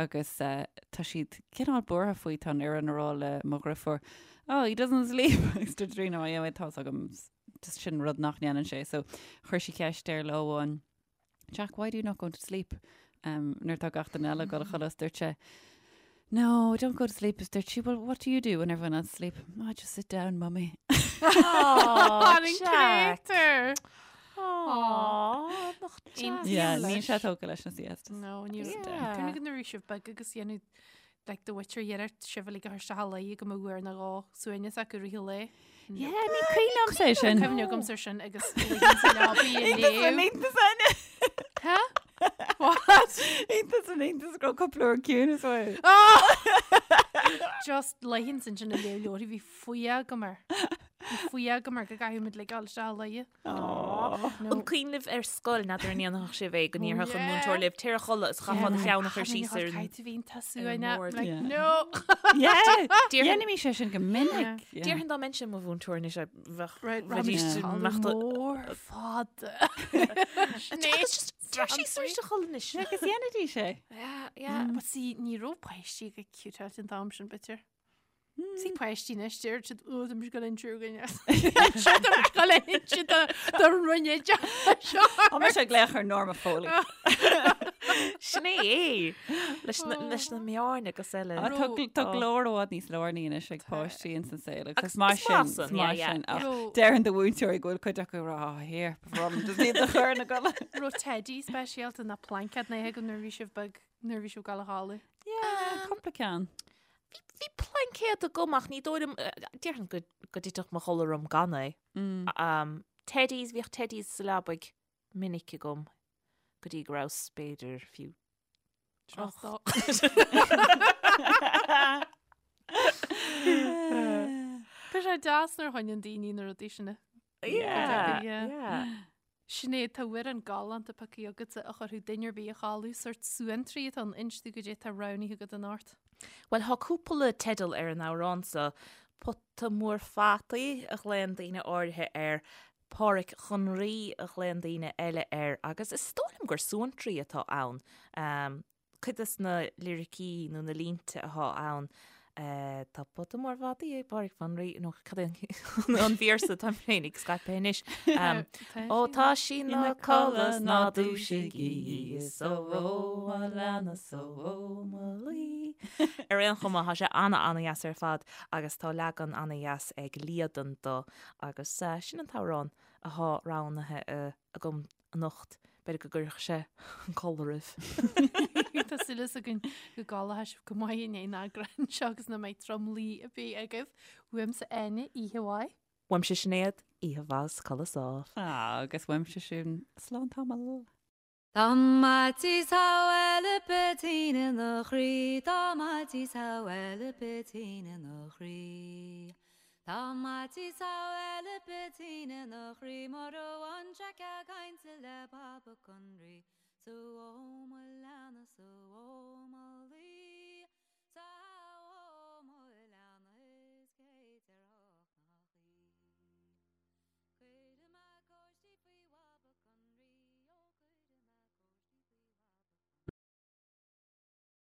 agus tá siad cineál buartha faoi, tá an fhoireann ag rá le mo dheirfiúr, oh, he doesn't sleep agus dúirt Tríona, oh yeah, tá 'fhios agam, just sin rud nach ndéanann sé. So chuir sí ceist air lá amháin, Jack, why do you not go to sleep? Um, nuair tá gach duine eile ag dul a chodladh, dúirt sé, No, I don't go to sleep. Is dúirt sí, well, what do you do when everyone else is asleep? Oh, I just sit down, mummy. Oh, Jack. Jack. Aw, nach deas. Yeah, níl sé tógtha leis na siestas. No, ní Yeah. Cuimhnigh nuair a bhí sibh beag agus dhéanadh like do mhuintir iarracht sibh uilig a chur isteach a luí go mbeadh uair nó dhó suaimhneas acu i rith an lae. Yeah, ní cuimhin liomsa é sin. Cuimhne agamsa ar sin agus luíonn sa leabaidh ag léamh. Iontas Áine. Huh? What? Iontas an iontas go raibh cúpla uair ciúnas uaidh. Just luíonn sin sin ag léamh leabharthaí bhí fuath agam air. Bhí fuath agam air go gcaithfidh muid like dul isteach a luí. An cuimhin libh ar scoil n'fheadar an ndéanfadh sibh é go ndéarfadh an múinteoir libh téir a chodladh is chaithfeá do cheann a chur síos ar an mbord. No! Dhéanaimis é sin go minic. Déarfainn dá mbeinnse i mo mhúinteoir anois bheadh bheidís mór fada. Agus just téir síos arís a chodladh anois. Agus dhéanaidís é. Yeah, yeah. But see, ní raibh páistí go ciútáilte an t-am sin b'fhéidir. See páistí anois deir siad ó tá mise ag dul inse againne. Tá mise ag dul inse do rinne seo. Tá mise ag glaoch ar Norma Foley. Sin é é leis na leis na meáin agus eile. Ah, Tá tá glór i bhfad níos lárnaí anois ag páistí ins an saol agus is maith is maith sin, san, is maith yeah, yeah. sin. Ach Ro- deireann do mhúinteoirí go bhfuil cuid acu ag rá, "Oh, here, ba bhreá liom just iad a chur ina gcodladh. Raibh teidí speisialta ná plaincéad ná agam nuair a bhí sibh beag nuair a bhí sibh ag dul a chodladh. Yeah, cúpla ceann. Bhí plaincéad agam ach ní dóigh liom, déarfainn go go dtitfeadh mo chodladh orm gan é. Um, teddies, bhíodh teddies sa leabaidh minic agam go dtí go rabhas b'fhéidir fiú Tráchtá. Tá sé deas nuair a choinníonn daoine na rudaí sin. Yeah, Yeah. yeah. Sinéad, tá amhrán galánta pioctha agatsa a chuirfeadh duine ar bith a chodladh, sórt suantraí atá ann, inis dúinn goidé atá roghnaithe agat anocht. Bhuel, thá cúpla teideal ar an amhrán so, Pota Mór Fataí a ghlaonn daoine áirithe air, Páraic Chon Rí a ghlaonn daoine eile air agus is dóigh liom gur suantraí atá ann. Cuid des na liricí nó na línte athá ann, Tá pota mór fataí ag Páraic fán Rí, nó cad é an véarsa táim féin ag scaipeadh anois. Ó tá sí 'na codladh 's ná dúisigí í, is ó ó mo leanna 's ó ó mo luí. Ar aon chuma, tá sé ana-ana-dheas ar fad agus tá leagan ana-dheas ag Líadan do agus sin an t-amhrán athá roghnaithe agam anocht. B'fhéidir go gcuirfeadh sé an codladh oraibh. Tá súil againn go gcodlóidh sibh go maith i ndiaidh an eagráin seo agus nach mbeidh tromluí ar bith agaibh. Uaimse Áine, oíche mhaith. Uaimse Sinéad, oíche mhaith is codladh sámh. Agus uaimse Siún, slán tamall. Dá maití sa bhaile peatín ina chroí, dá maití sa bhaile peatín ina chroí. Dá maití sa bhaile peatín ina chroí mura bhfaigheann sé cead cainte le Papa Conraoi. 'S ó mo leanna 's ó mo luí.